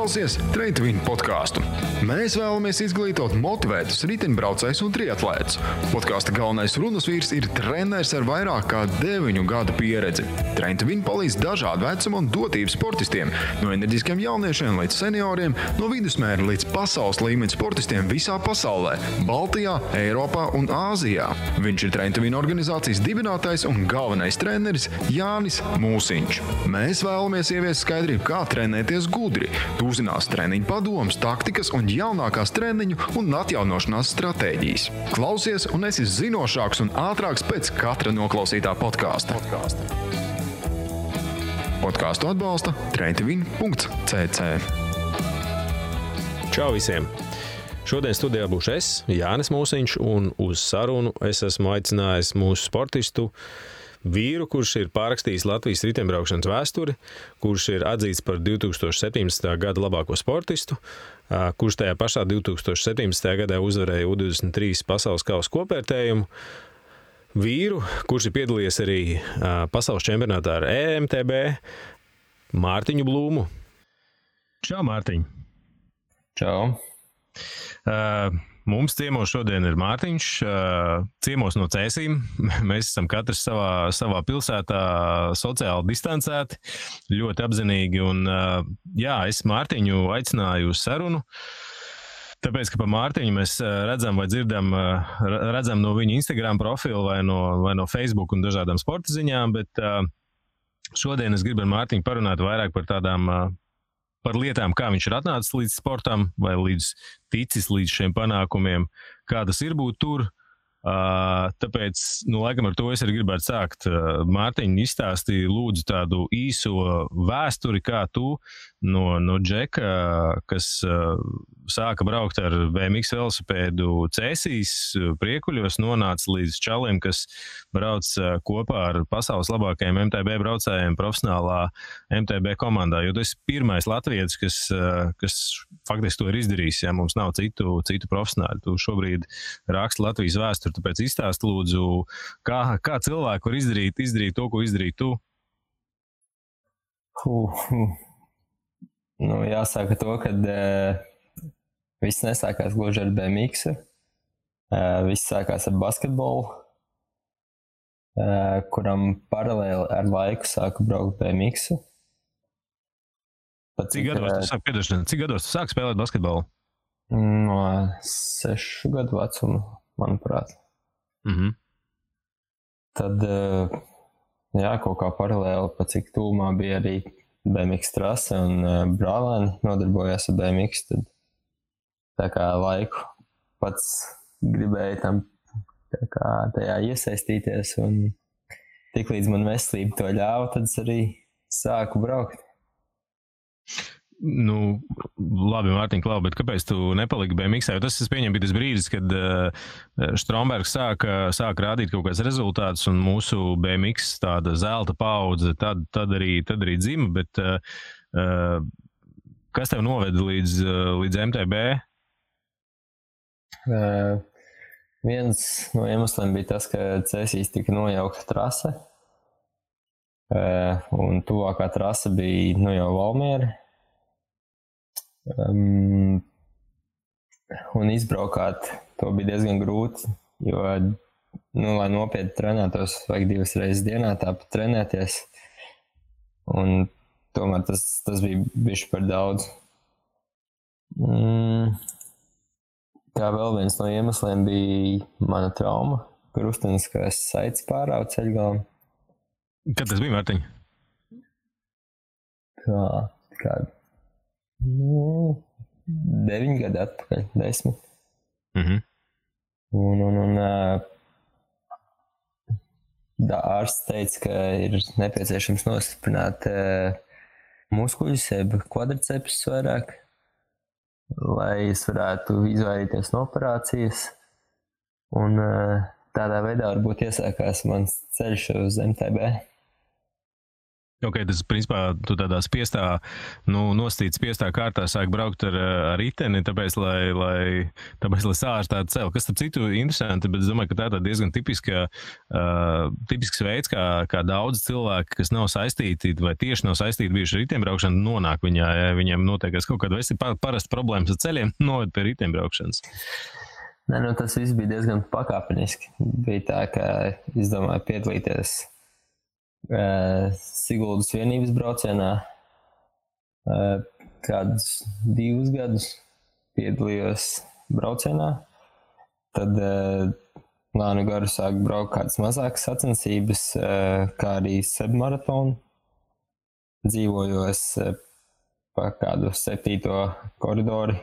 klausies Train2Win podcastu. Mēs vēlamies izglītot motivētus riteņbraucējus un triatlētus. Podkāsta galvenais runas vīrs ir treneris ar vairāk kā 9 gadu pieredzi. Train2Win palīdz dažādu vecumu un dotību sportistiem, no enerģiskiem jauniešiem līdz senioriem, no vidusmēra līdz pasaules līmeņa sportistiem visā pasaulē, Baltijā, Eiropā un Āzijā. Viņš ir Train2Win organizācijas dibinātājs un galvenais treneris Jānis Mūsiņš. Mēs vēlamies ieviest skaidrību, kā trenēties gudri. Tu uzzināsi treniņu padomus, taktikas un jaunākās treniņu un atjaunošanās stratēģijas. Klausies un esi zinošāks un ātrāks pēc katra noklausītā podkāsta. Podkāstu atbalsta train2win.cc. Čau visiem! Šodien studijā būšu es, Jānis Mūsiņš, un uz sarunu es esmu aicinājis mūsu sportistu vīru, kurš ir pārrakstījis Latvijas riteņbraukšanas vēsturi, kurš ir atzīts par 2017. gada labāko sportistu, kurš tajā pašā 2017. gadā uzvarēja U23 pasaules kausa kopvērtējumu, vīru, kurš ir piedalījies arī pasaules čempionātā ar EMTB, Mārtiņu Blūmu. Čau, Mārtiņ! Čau! Mums ciemos šodien ir Mārtiņš, ciemos no Cēsīm. Mēs esam katrs savā pilsētā sociāli distancēti, ļoti apzinīgi. Un, jā, es Mārtiņu aicināju uz sarunu, tāpēc, ka pa Mārtiņu mēs redzam vai dzirdam no viņa Instagram profilu vai no Facebook un dažādām sporta ziņām, bet šodien es gribu ar Mārtiņu parunāt vairāk par lietām, kā viņš ir atnācis līdz sportam vai ticis līdz šiem panākumiem, kā tas ir būt tur. Tāpēc, laikam ar to es arī gribētu sākt. Mārtiņ, izstāstīja lūdzu tādu īso vēsturi, kā tu no Džeka, kas sāka braukt ar BMX velosipēdu Cēsīs, Priekuļos, nonāca līdz čaliem, kas brauc kopā ar pasaules labākajiem MTB braucējiem profesionālā MTB komandā, jo tu esi pirmais latvietis, kas faktiski to ir izdarījis, ja mums nav citu profesionāļu. Tu šobrīd raksti Latvijas vēsturi, tāpēc izstāst lūdzu, kā cilvēku var izdarīt to, ko izdarīt tu? Nu, jāsaka to, kad viss nesākās gluži ar BMX. Viss sākās ar basketbolu, kuram paralēli ar laiku sāku braukt BMX. Cik gados tu sāki spēlēt basketbolu? No 6 gadu vecuma, manuprāt. Mhm. Tad, jā, kaut kā paralēli, pa cik tūmā bija arī BMX trase un brālēni nodarbojās ar BMX, tad tā kā laiku pats gribēju tam tā kā tajā iesaistīties un tik līdz man veselība to ļāva, tad es arī sāku braukt. Nu, labi, Mārtiņ, klau, bet kāpēc tu nepaliki BMX? Jo tas, es pieņemu, bija tas brīdis, kad Strombergs sāka rādīt kaut kāds rezultātus un mūsu BMX tāda zelta paudze tad arī dzima, bet kas tev noveda līdz MTB? Viens no iemesliem bija tas, ka Cēsīs tika nojaukta trase, un tuvākā trase bija jau Valmiera. Un izbraukāt to bija diezgan grūti, jo, lai nopietni trenētos, vajag 2 reizes dienā tāpat trenēties, un tomēr tas bija bišķi par daudz. Kā vēl viens no iemesliem bija mana trauma, krusteniskās saites pārāva ceļgalam. Kad tas bija, Mārtiņ? Kādu? 9 gadi atpakaļ, 10. Mhm. Un ārsts teica, ka ir nepieciešams nostiprināt muskuļus, jeb kvadricepus vairāk, lai es varētu izvairīties no operācijas. Un tādā veidā varbūt iesākās mans ceļš uz MTB. Ok, tas principā tu tādā spiestā, nostīts spiestā kārtā sāk braukt ar riteni, tāpēc, lai sārstātu celu. Kas, starp citu, interesanti, bet es domāju, ka tā ir diezgan tipisks veids, kā daudz cilvēki, kas nav saistīti vai tieši nav saistīti bijuši ar riteņbraukšanu, nonāk viņā, ja viņiem notiekas kaut kāda parasta problēmas ar ceļiem, noved pie riteņbraukšanas. Nē, tas viss bija diezgan pakāpeniski. Bija tā, ka izdomāju piedalīties Siguldas vienības braucienā. Kādus 2 gadus piedalījos braucienā. Tad lēnu garu sāku braukt kādas mazākas sacensības, kā arī sebmaratonu. Dzīvojos pa kādu 7. koridoru.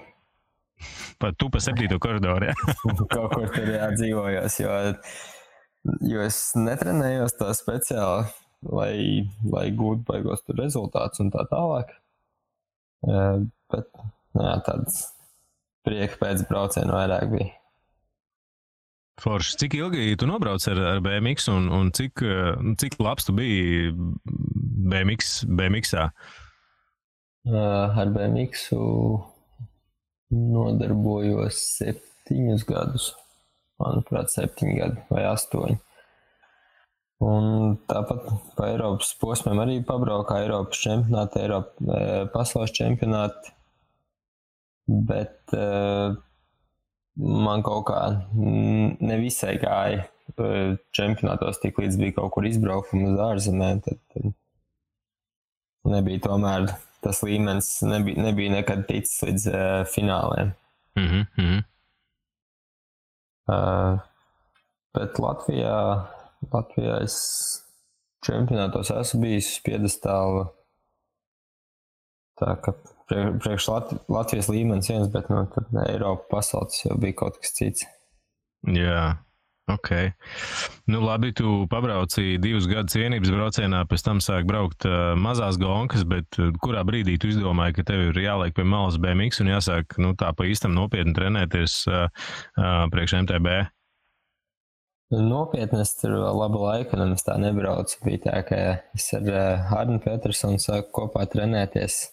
Tu pa 7. koridoru, jā? Kaut kur tur dzīvojos, jo es netrenējos tā speciāli, lai gūtu baigos tur rezultātus un tā tālāk. Bet tāds prieka pēc brauciena vairāk bija. Forši, cik ilgi tu nobrauc ar BMX un cik labs tu biji BMX-ā? Ar BMX-u nodarbojos 7 gadus. Manuprāt, 7 gadi vai 8. Un tāpat pa Eiropas posmiem arī pabraukā Eiropas čempionāti, pasaules čempionāti, bet man kaut kā nevisai gāja čempionātos, tik līdz bija kaut kur izbraukumi uz ārzemēm, tad nebija tomēr tas līmenis, nebija nekad ticis līdz fināliem. Bet Latvijā es čempionātos esmu bijis uz piedestālu, tā ka priekš Latvijas līmenis viens, bet tad Eiropa pasaules jau bija kaut kas cits. Jā, ok. Labi, tu pabrauci 2 gadus vienības braucienā, pēc tam sāk braukt mazās gonkas, bet kurā brīdī tu izdomāji, ka tev ir jāliek pie malas BMX un jāsāk tā pa īstam nopietni trenēties priekš MTB? Nopietni es tur vēl labu laiku nemaz tā nebraucu. Bija tā, ka es ar Arnu Petersonu sāku kopā trenēties.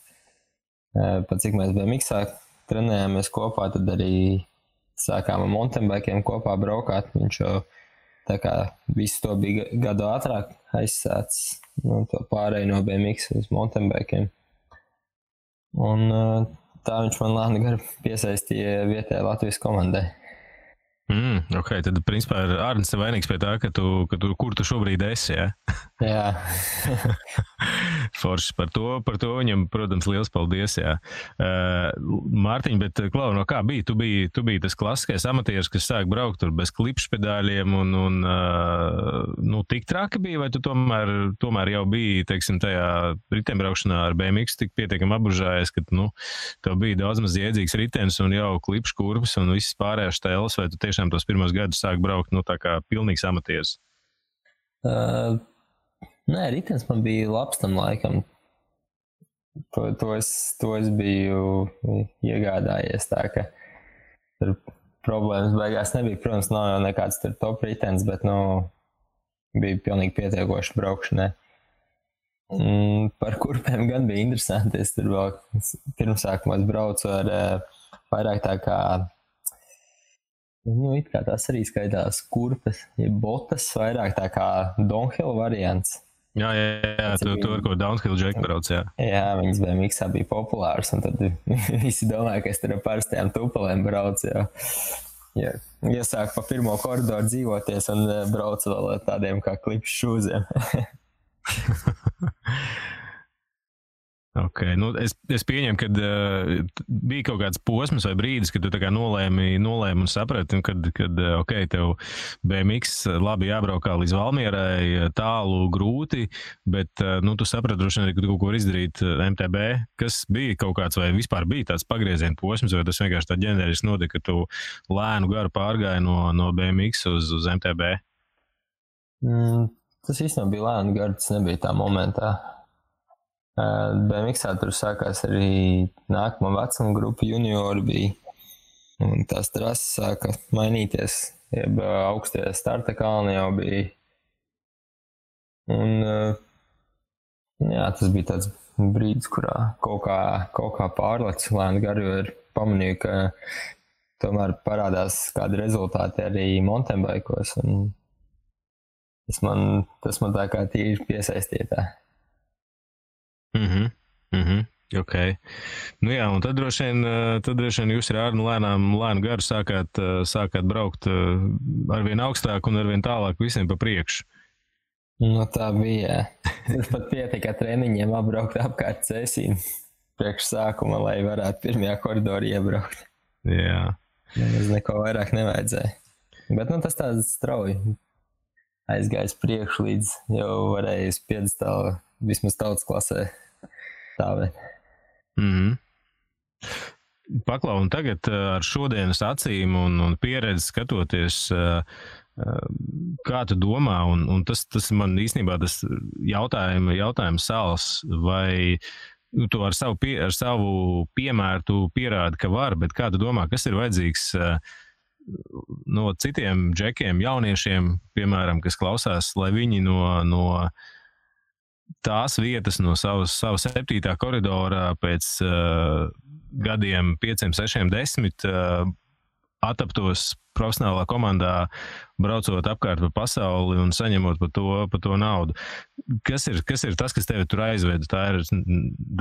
Pat cik mēs BMX-ā trenējāmies kopā, tad arī sākām ar mountainbikiem kopā braukāt. Viņš jau tā kā visu to bija gadu ātrāk aizsācis, to pārēju no BMX uz mountainbikiem. Un tā viņš man lēni gar piesaistīja vietējai Latvijas komandai. Ok, tad principā ir Arnis vainīgs pie tā, kur tu šobrīd esi, ja? Jā. Forši par to viņam, protams, liels paldies, jā. Mārtiņ, bet Klau, no kā bija? Tu biji tas klasiskais amatieris, kas sāk braukt tur bez klipšpedāļiem un tik traki bija, vai tu tomēr jau biji, teiksim, tajā riteņbraukšanā ar BMX tik pietiekami apbužājies, ka, tev bija daudz maz jēdzīgs ritenis un jau klipškurpes un viss pārējās tēlas, vai tu tiešām tos pirmos gadus sāk braukt, tā kā pilnīgs amatieris? Nē, ritenis man bija labs tam laikam. To es biju iegādājies tā, ka tur problēmas beigās nebija. Protams, nav jau nekāds tur top ritenis, bet, bija pilnīgi pietiekoši braukšanai. Par kurpēm gan bija interesanti. Es tur vēl pirmsākumā braucu ar vairāk tā kā it kā tās arī skaitās kurpes, ja botas vairāk tā kā downhill variants. Jā, tu ar ko downhill džeku brauc, jā. Jā, viņas BMX-ā bija populārs, un tad visi domāja, ka es tur ar parastajām tupelēm braucu, jā. Iesāku pa pirmo koridoru dzīvoties un braucu vēl ar tādiem kā klipšu šūziem. Ok, es pieņemu, ka bija kaut kāds posms vai brīdis, kad tu tā kā nolēmi un saprati, kad ok, tev BMX labi jābraukā līdz Valmierai, tālu, grūti, bet tu saprati droši vien, ka tu kaut ko var izdarīt MTB, kas bija kaut kāds vai vispār bija tāds pagrieziena posms, vai tas vienkārši tā ģeneriski notika, ka tu lēnu garu pārgāji no BMX uz MTB? Tas īstenībā bija lēnu garu, tas nebija tā momentā. BMX-ā tur sākās arī nākamā vecuma grupa juniori bija, un tās trases sāka mainīties, jeb augstie starta kalni jau bija. Un Jā, tas bija tāds brīdis, kurā kaut kā pārlec lēni garu, jo ir pamanīju, ka tomēr parādās kādi rezultāti arī mountainbike'os, un tas man tā kā tīri piesaistītā. Ok. Nu jā, un tad droši vien jūs ar Arnu lēnu garu sākāt braukt arvien augstāk un arvien tālāk visiem pa priekšu. Nu tā bija. Tas pat pietika treniņiem apbraukt apkārt Cēsīm priekš sākuma, lai varētu pirmajā koridorī iebraukt. Jā. Nemaz neko vairāk nevajadzēja. Bet tas tāds strauji aizgājis priekšu līdz jau varēja uz piedestālu vismaz tautas klasē stāvēt. Paklau, un tagad ar šodienas acīm un pieredzi skatoties, kā tu domā, un tas man īstenībā tas jautājums sāls, vai tu ar savu piemēru tu pierādi, ka var, bet kā tu domā, kas ir vajadzīgs no citiem džekiem, jauniešiem, piemēram, kas klausās, lai viņi no tās vietas, no savas 7. koridora pēc gadiem 5, 6, 10 ataptos profesionālā komandā, braucot apkārt pa pasauli un saņemot par to naudu. Kas ir tas, kas tevi tur aizveda? Tā ir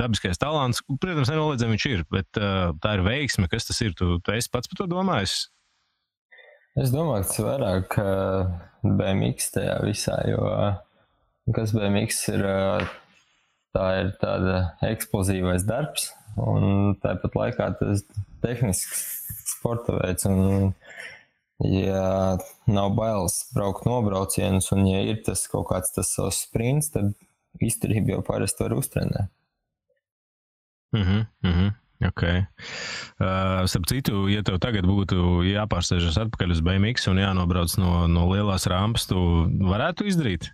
dabiskais talants, protams, nenoliedzami viņš ir, bet tā ir veiksme, kas tas ir? Tu esi pats par to domājis? Es domāju, ka tas vairāk BMX tajā visā, jo kas BMX ir, tā ir tāda eksplozīvais darbs, un tāpat laikā tas tehnisks sporta veids, un ja nav bailes braukt nobraucienus, un ja ir tas kaut kāds tas savs sprints, tad izturību jau parasti var uztrenēt. Ok. Starp citu, ja tev tagad būtu jāpārsēžas atpakaļ uz BMX un jānobrauc no lielās rampas, tu varētu izdarīt?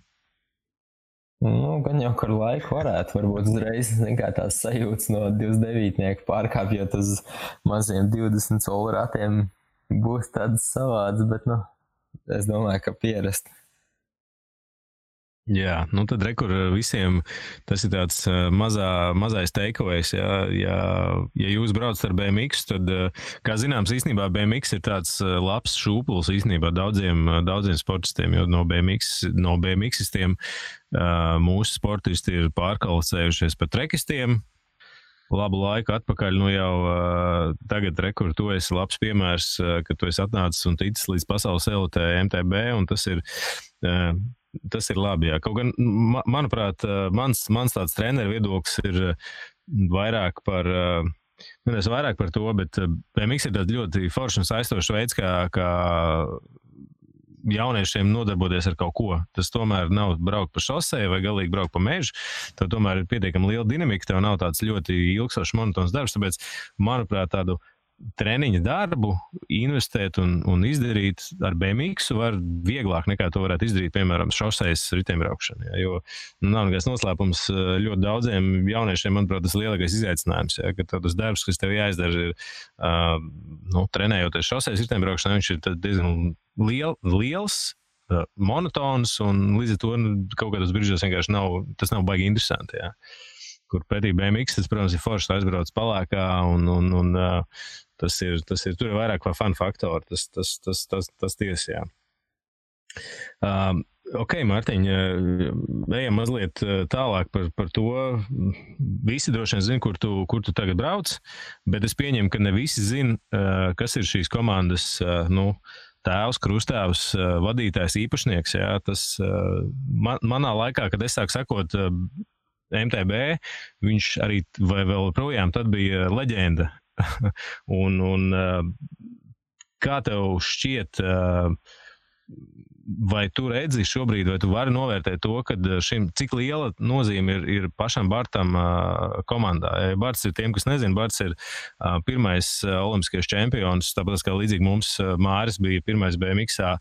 Gan jau ar laiku varētu, varbūt uzreiz kā tās sajūtas no 29 pārkāpjot uz maziem 20 soli ratiem būs tāds savāds, bet es domāju, ka pierast. Jā, tad rekur visiem tas ir tāds mazais takeaways, ja jūs braucat ar BMX, tad, kā zināms, īstenībā BMX ir tāds labs šūpuls īstenībā daudziem sportistiem, jo no BMXistiem mūsu sportisti ir pārkvalificējušies par trekistiem. Labu laiku atpakaļ, jau tagad rekur, tu esi labs piemērs, ka tu esi atnācis un ticis līdz pasaules elitē MTB, un tas ir labi, jā. Kaut gan, manuprāt, mans tāds treneru viedoklis ir vairāk par to, bet BMX ir tāds ļoti foršs un saistošs veids, kā jauniešiem nodarboties ar kaut ko. Tas tomēr nav braukt pa šoseju vai galīgi braukt pa mežu. Tev tomēr ir pietiekami liela dinamika, tev nav tāds ļoti ilgstošs monotons darbs, tāpēc, manuprāt, tādu treniņa darbu investēt un izdarīt ar BMX var vieglāk nekā to varētu izdarīt, piemēram, šosejas riteņbraukšana. Jo nav nekāds noslēpums ļoti daudziem jauniešiem, manuprāt, tas lielākais izaicinājums, ka tas darbs, kas tev jāizdara, ir trenējoties šosejas riteņbraukšanā, viņš ir diezgan liels, monotons, un līdz ar to kaut kādos brīžos vienkārši tas nav baigi interesanti. Jā. Kur pretī BMX, tas, protams, ir forši aizbrauc palākā, un tas ir tur ir vairāk kā fun faktori, tas tiesa, jā. Ok, Mārtiņ, ejam mazliet tālāk par to. Visi droši vien zina, kur tu tagad brauc, bet es pieņemu, ka ne visi zina, kas ir šīs komandas, tēvs, krustāvs, vadītājs, īpašnieks, jā. Tas manā laikā, kad es sāku sekot MTB, viņš arī vai vēl projām tad bija leģenda. un kā tev šķiet, vai tu redzi šobrīd, vai tu vari novērtēt to, ka cik liela nozīme ir pašam Bartam komandā? Barts ir tiem, kas nezina, Barts ir pirmais olimpiskais čempions, tāpēc kā līdzīgi mums Māris bija pirmais BMX-ā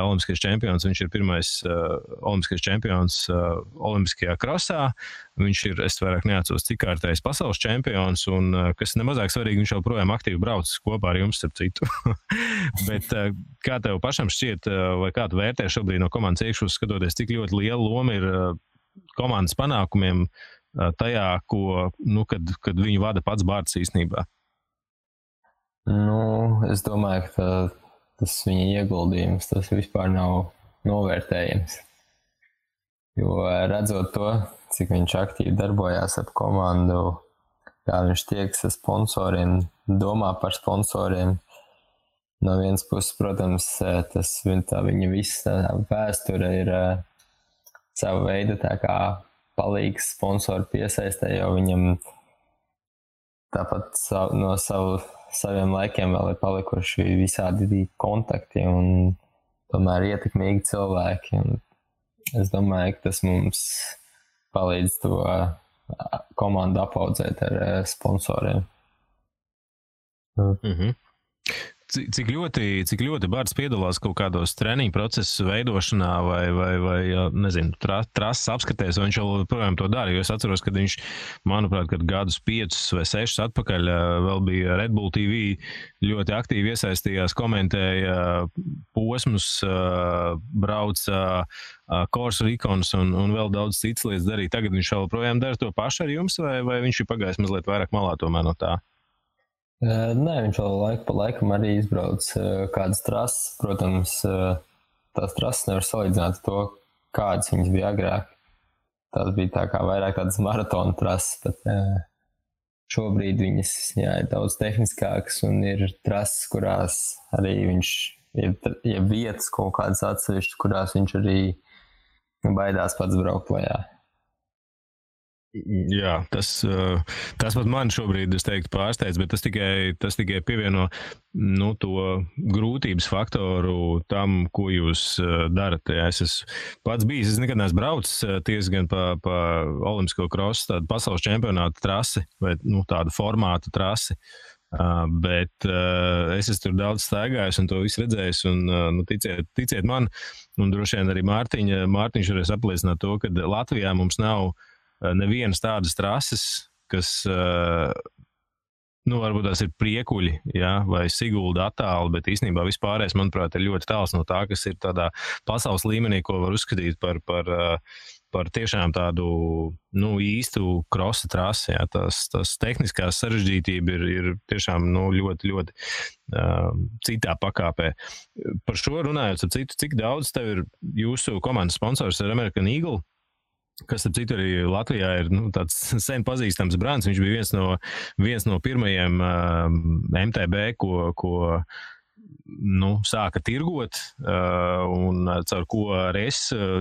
olimpiskais čempions, viņš ir pirmais olimpiskais čempions olimpiskajā krosā, viņš ir, es vairāk neatceros, cik kārtējs pasaules čempions, un kas nemazāk svarīgi, viņš joprojām aktīvi brauc kopā ar jums, starp citu. Bet kā tev pašam šķiet, vai kā tu vērtē šobrīd no komandas iekšpuses skatoties, cik ļoti liela loma ir komandas panākumiem tajā, kad viņu vada pats Bārts īstenībā? Es domāju, ka tas viņa ieguldījums, tas vispār nav novērtējams. Jo redzot to, cik viņš aktīvi darbojās ap komandu, kā viņš tiekas ar sponsoriem, domā par sponsoriem. No vienas puses, protams, viņa visa vēsture ir sava veida tā kā palīgs sponsoru piesaistē, jo viņam tāpat no saviem laikiem vēl ir palikuši visādi kontakti un tomēr ietekmīgi cilvēki. Un es domāju, ka tas mums palīdz to komandu apaudzēt ar sponsoriem. Mhm. Cik ļoti Bārts piedalās kaut kādos treniņu procesu veidošanā vai nezinu, trases apskatēs, vai viņš joprojām to dara, jo es atceros, kad viņš, manuprāt, kad gadus 5 vai 6 atpakaļ vēl bija Red Bull TV, ļoti aktīvi iesaistījās, komentēja posmus, brauca Course Recons un vēl daudz citas lietas darīja. Tagad viņš joprojām dara to pašu ar jums, vai viņš ir pagājis mazliet vairāk malā tomēr no tā? Nē, viņš vēl laiku pa laikam arī izbrauc kādas trases. Protams, tās trases nevar salīdzināt to, kādas viņas bija agrāk. Tās bija tā kā vairāk tādas maratona trases, bet šobrīd viņas ir daudz tehniskākas un ir trases, kurās arī viņš ir vietas kaut kādas atsevišķas, kurās viņš arī baidās pats braukt lejā. Jā, tas pat man šobrīd, es teiktu, pārsteidz, bet tas tikai pievieno to grūtības faktoru tam, ko jūs darat. Jā, es esmu pats bijis, es nekad neesmu braucis tiesa gan pa olimpisko krosu, tādu pasaules čempionātu trasi vai tādu formātu trasi. Bet es esmu tur daudz staigājis un to visu redzējis un ticiet man, un droši vien arī Mārtiņš varēs apliecināt to, ka Latvijā mums nav nevienas tādas trases, kas, varbūt tās ir Priekuļi, jā, vai Sigulda attāli, bet īstenībā vispārējais, manuprāt, ir ļoti tāls no tā, kas ir tādā pasaules līmenī, ko var uzskatīt par tiešām tādu, īstu krosa trasi, jā, tas tehniskās sarežģītība ir tiešām, ļoti, ļoti citā pakāpē. Par šo runājot, cik daudz tev ir jūsu komandas sponsors ar American Eagle? Kas, ap citu, arī Latvijā ir tāds sen pazīstams brands. Viņš bija viens no pirmajiem MTB, ko sāka tirgot, un caur ko arī es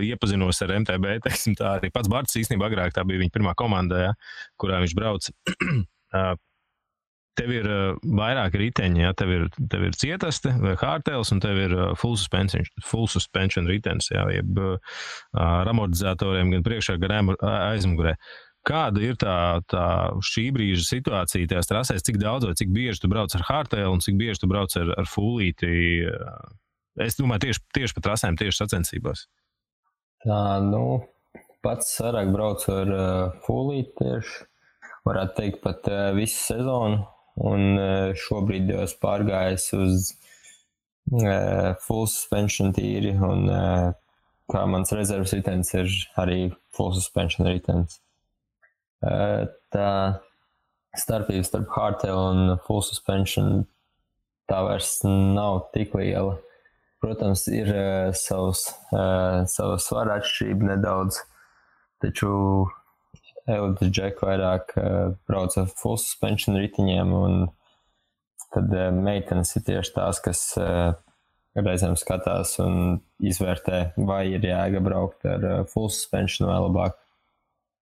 iepazinos ar MTB, teiksim tā, arī pats Bārts īstenībā agrāk, tā bija viņa pirmā komanda, ja, kurā viņš brauca. Tev ir vairāki riteņi, ja? Tev ir cietaste vai hardtails, un tev ir full suspension ritenis, ja? Jeb ar amortizatoriem gan priekšā, gan aizmugurē. Kāda ir tā šī brīža situācija tajās trasēs? Cik daudz vai cik bieži tu brauc ar hardtail un cik bieži tu brauc ar fullīti? Es domāju, tieši pa trasēm, tieši sacensībās. Tā, pats vairāk braucu ar fullīti tieši. Varētu teikt pat visu sezonu. Un šobrīd jau es pārgājis uz full suspension tīri, un kā mans rezerves ritenis ir arī full suspension ritenis. Tā starpība starp hardtail un full suspension tā vairs nav tik liela. Protams, ir sava svara atšķirība nedaudz, taču Elites Džek vairāk brauc ar full suspension ritiņiem, un tad meitenes ir tieši tās, kas reizēm skatās un izvērtē, vai ir jēga braukt ar full suspension vai labāk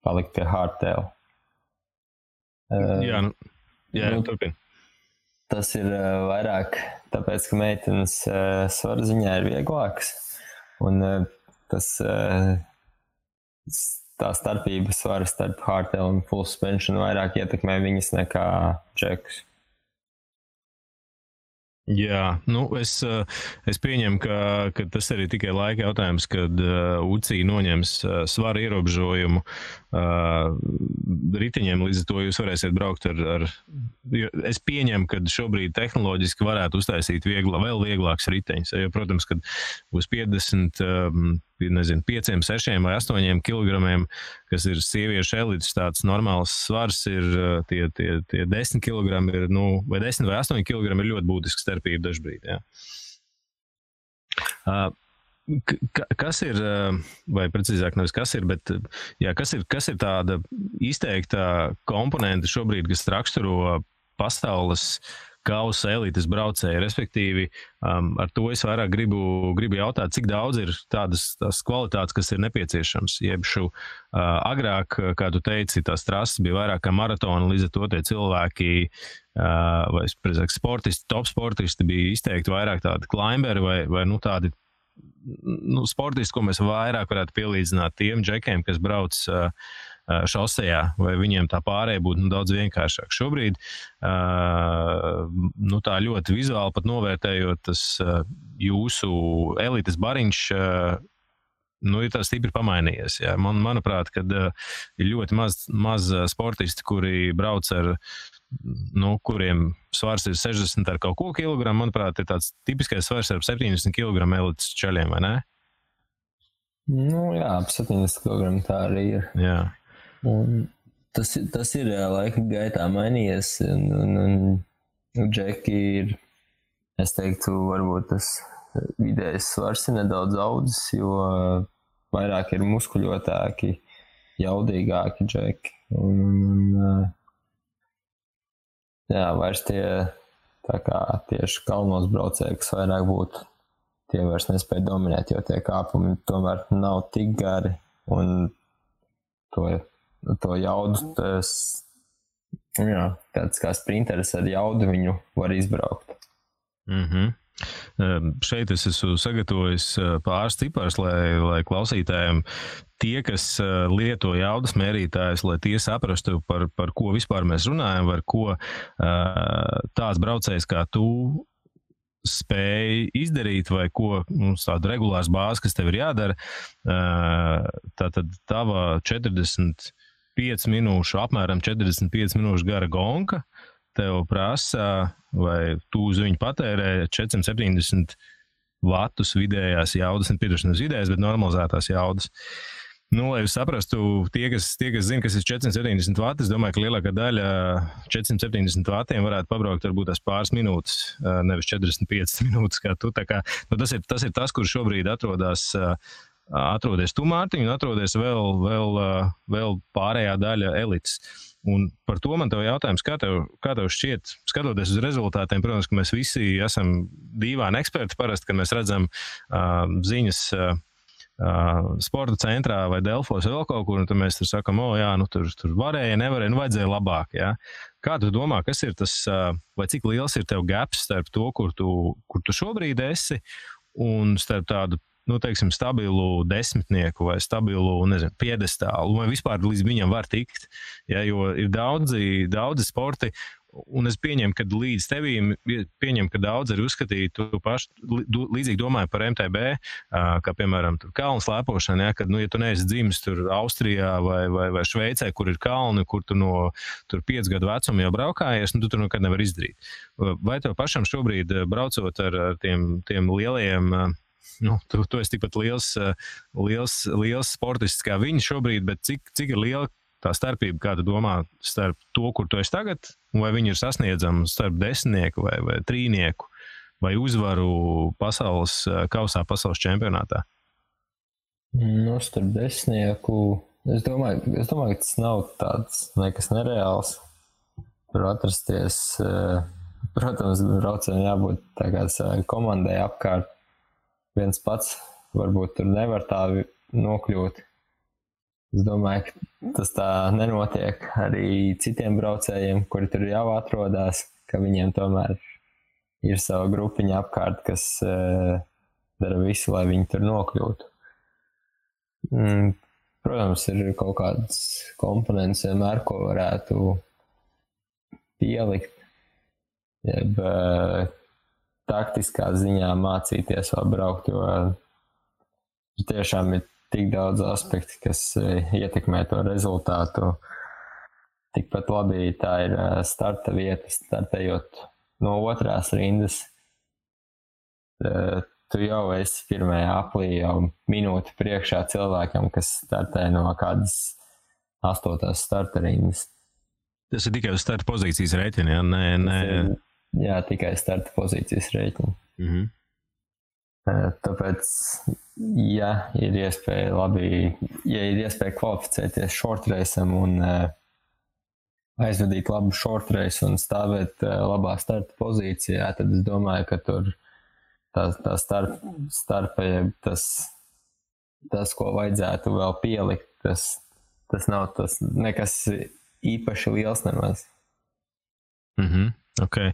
palikt pie hardtail. Jā, turpin. Tas ir vairāk tāpēc, ka meitenes svara ziņā ir vieglāks, un tā starpība svara starp hardtail un full suspension vairāk ietekmē viņas nekā džekus. Jā, es pieņemu, ka tas arī tikai laika jautājums, kad UCI noņems svara ierobežojumu riteņiem, līdz ar to jūs varēsiet braukt ar es pieņemu, ka šobrīd tehnoloģiski varētu uztaisīt vēl vieglāks riteņus, jo, protams, kad būs 50, 5, 6 vai 8 kilogramiem, kas ir sieviešu elites, tāds normāls svars ir tie 10 kilogrami ir, vai 10 vai 8 kilogrami ir ļoti būtiska starpība dažbrīd, jā. Kas ir, vai precīzāk nevis kas ir, bet jā, kas ir tāda izteikta komponenta šobrīd, kas raksturo pasaules kausa elites braucēju, respektīvi ar to es vairāk gribu jautāt, cik daudz ir tās kvalitātes, kas ir nepieciešams. Jebšu agrāk, kā tu teici, tās trases bija vairāk kā maratona, līdz ar to tie cilvēki vai, precīzāk, sportisti, top sportisti bija izteikti vairāk tādi climberi vai tādi sportisti, ko mēs vairāk varētu pielīdzināt tiem džekiem, kas brauc šosejā, vai viņiem tā pārēja būtu daudz vienkāršāk. Šobrīd, tā ļoti vizuāli pat novērtējot, tas jūsu elites bariņš, ir tā stipri pamainījies. Jā. Manuprāt, kad ir ļoti maz sportisti, kuri brauc ar kuriem svars ir 60 ar kaut ko kilogramu, manuprāt, ir tāds tipiskais svars ar 70 kilogramu elites čaļiem, vai ne? Jā, ap 70 kilogramu tā arī ir. Jā. Un tas ir laika gaitā mainījies, un džeki ir, es teiktu, varbūt tas vidējais svars ir nedaudz audzis, jo vairāk ir muskuļotāki, jaudīgāki džeki. Vairs tie tā kā tieši kalnos braucēji, kas vairāk būtu, tie vairs nespēja dominēt, jo tie kāpumi tomēr nav tik gari, un to jaudu, tāds kā sprinteris ar jaudu viņu var izbraukt. Šeit es esmu sagatavojis pāris ciparus, lai klausītājiem tie, kas lieto jaudas mērītājus, lai tie saprastu, par ko vispār mēs runājam, par ko tāds braucējs kā tu spēj izdarīt, vai ko tādu regulārs bāzi, kas tev ir jādara. Tātad tava 45 minūšu, apmēram 45 minūšu gara gonka tev prasa, vai tu uz viņu patērē 470 vatus vidējās jaudas, nepiedošanas vidējās, bet normalizētās jaudas. Lai jūs saprastu, tie, kas zina, kas ir 470 vati, es domāju, ka lielākā daļa 470 vatiem varētu pabraukt varbūt tās pāris minūtes, nevis 45 minūtes kā tu. Tā kā, tas ir tas, kur šobrīd atrodies tu, Mārtiņ, un atrodies vēl pārējā daļa elites. Un par to man tev jautājums, kā tev šķiet, skatoties uz rezultātiem, protams, ka mēs visi esam dīvaini eksperti parasti, kad mēs redzam ziņas sporta centrā vai Delfos vai vēl kaut kur, un tad mēs tur sakam, tur varēja, nevarēja, vajadzēja labāk, jā. Kā tu domā, kas ir tas, vai cik liels ir tev gaps starp to, kur tu šobrīd esi, un starp tādu, teiksim, stabilu desmitnieku vai stabilu, piedestālu, vai vispār līdz viņam var tikt, jo ir daudzi sporti, un es pieņemu, ka līdz tevīm, ka daudz arī uzskatīja, tu paši līdzīgi domāju par MTB, kā piemēram tur kalnu slēpošana, kad, ja tu neesi dzimis tur Austrijā vai Šveicē, kur ir kalni, kur tu no tur 5 gadu vecuma jau braukājies, tu tur nekad nevar izdarīt. Vai tev pašam šobrīd braucot ar tiem lielajiem, tu esi tikpat liels sportists kā viņi šobrīd, bet cik ir liela tā starpība, kā tu domā, starp to, kur tu esi tagad, vai viņi ir sasniedzami starp desmitnieku vai trīnieku, vai uzvaru pasaules kausā, pasaules čempionātā? Starp desmitnieku, es domāju, ka tas nav tāds nekas nereāls. Tur atrasties, protams, braucējiem jābūt tā kā savai komandai apkārt. Viens pats varbūt tur nevar tā nokļūt. Es domāju, ka tas tā nenotiek arī citiem braucējiem, kuri tur jau atrodas, ka viņiem tomēr ir sava grupiņa apkārt, kas dara visu, lai viņi tur nokļūtu. Protams, ir kaut kādas komponentes vienmēr, ko varētu pielikt, jeb taktiskā ziņā mācīties vēl braukt, jo tiešām ir tik daudz aspektu, kas ietekmē to rezultātu. Tikpat labi tā ir starta vieta, startējot no otrās rindas. Tu jau esi pirmajā aplī jau minūti priekšā cilvēkam, kas startē no kādas 8. starta rindas. Tas ir tikai uz starta pozīcijas rēķina, ja? Jā, tikai starta pozīcijas rēķina. Mhm. Tāpēc, ja ir iespēja kvalificēties short raceam un aizvadīt labu short race un stāvēt labā starta pozīcijā, tad es domāju, ka tur tā starpa, tas, ko vajadzētu vēl pielikt, tas nav tas nekas īpaši liels nemaz. Mhm. Okay.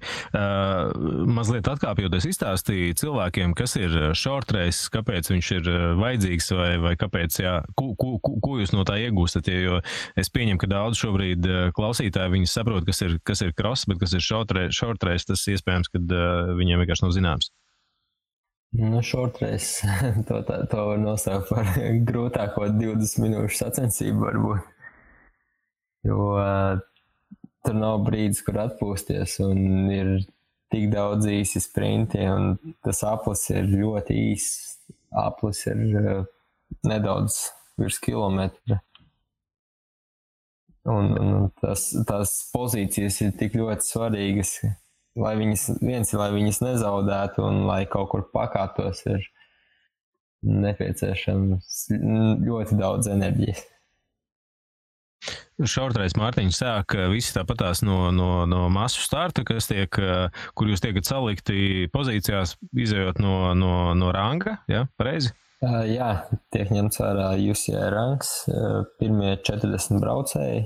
Mazliet atkāpjoties izstāstīja cilvēkiem, kas ir short race, kāpēc viņš ir vajadzīgs vai kāpēc, jā, ko jūs no tā iegūstat, jo es pieņemu, ka daudz šobrīd klausītāji viņi saprot, kas ir cross, bet kas ir short race, tas iespējams, kad viņiem vienkārši nav zināms. Nu, short race, to var nosaukt par grūtāko 20 minūšu sacensību varbūt, jo tur nav brīdis, kur atpūsties, un ir tik daudz īsi sprinti, un tas aplis ir ļoti īss. Aplis ir nedaudz virs kilometra. Un tās pozīcijas ir tik ļoti svarīgas, lai viņas nezaudētu, un lai kaut kur pakāptos, ir nepieciešams ļoti daudz enerģijas. Šaurtrais Mārtiņš sāk visi tāpatās no masu starta, kur jūs tiekat salikti pozīcijās, izējot no ranga, ja, pareizi? Jā, tiek ņemts vērā UCI rangs, pirmie 40 braucēji.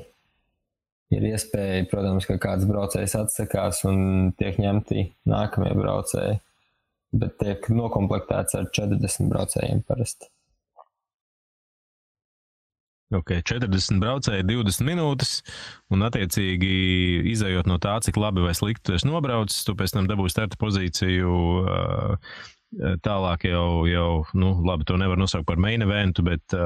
Ir iespēja, protams, ka kāds braucējs atsakās un tiek ņemti nākamie braucēji, bet tiek nokomplektēts ar 40 braucējiem parasti. Ok, 40 braucēji, 20 minūtes, un attiecīgi izējot no tā, cik labi vai slikti tu esi nobraucis, tu pēc tam dabūji starta pozīciju, tālāk jau, labi, to nevar nosaukt par main eventu, bet,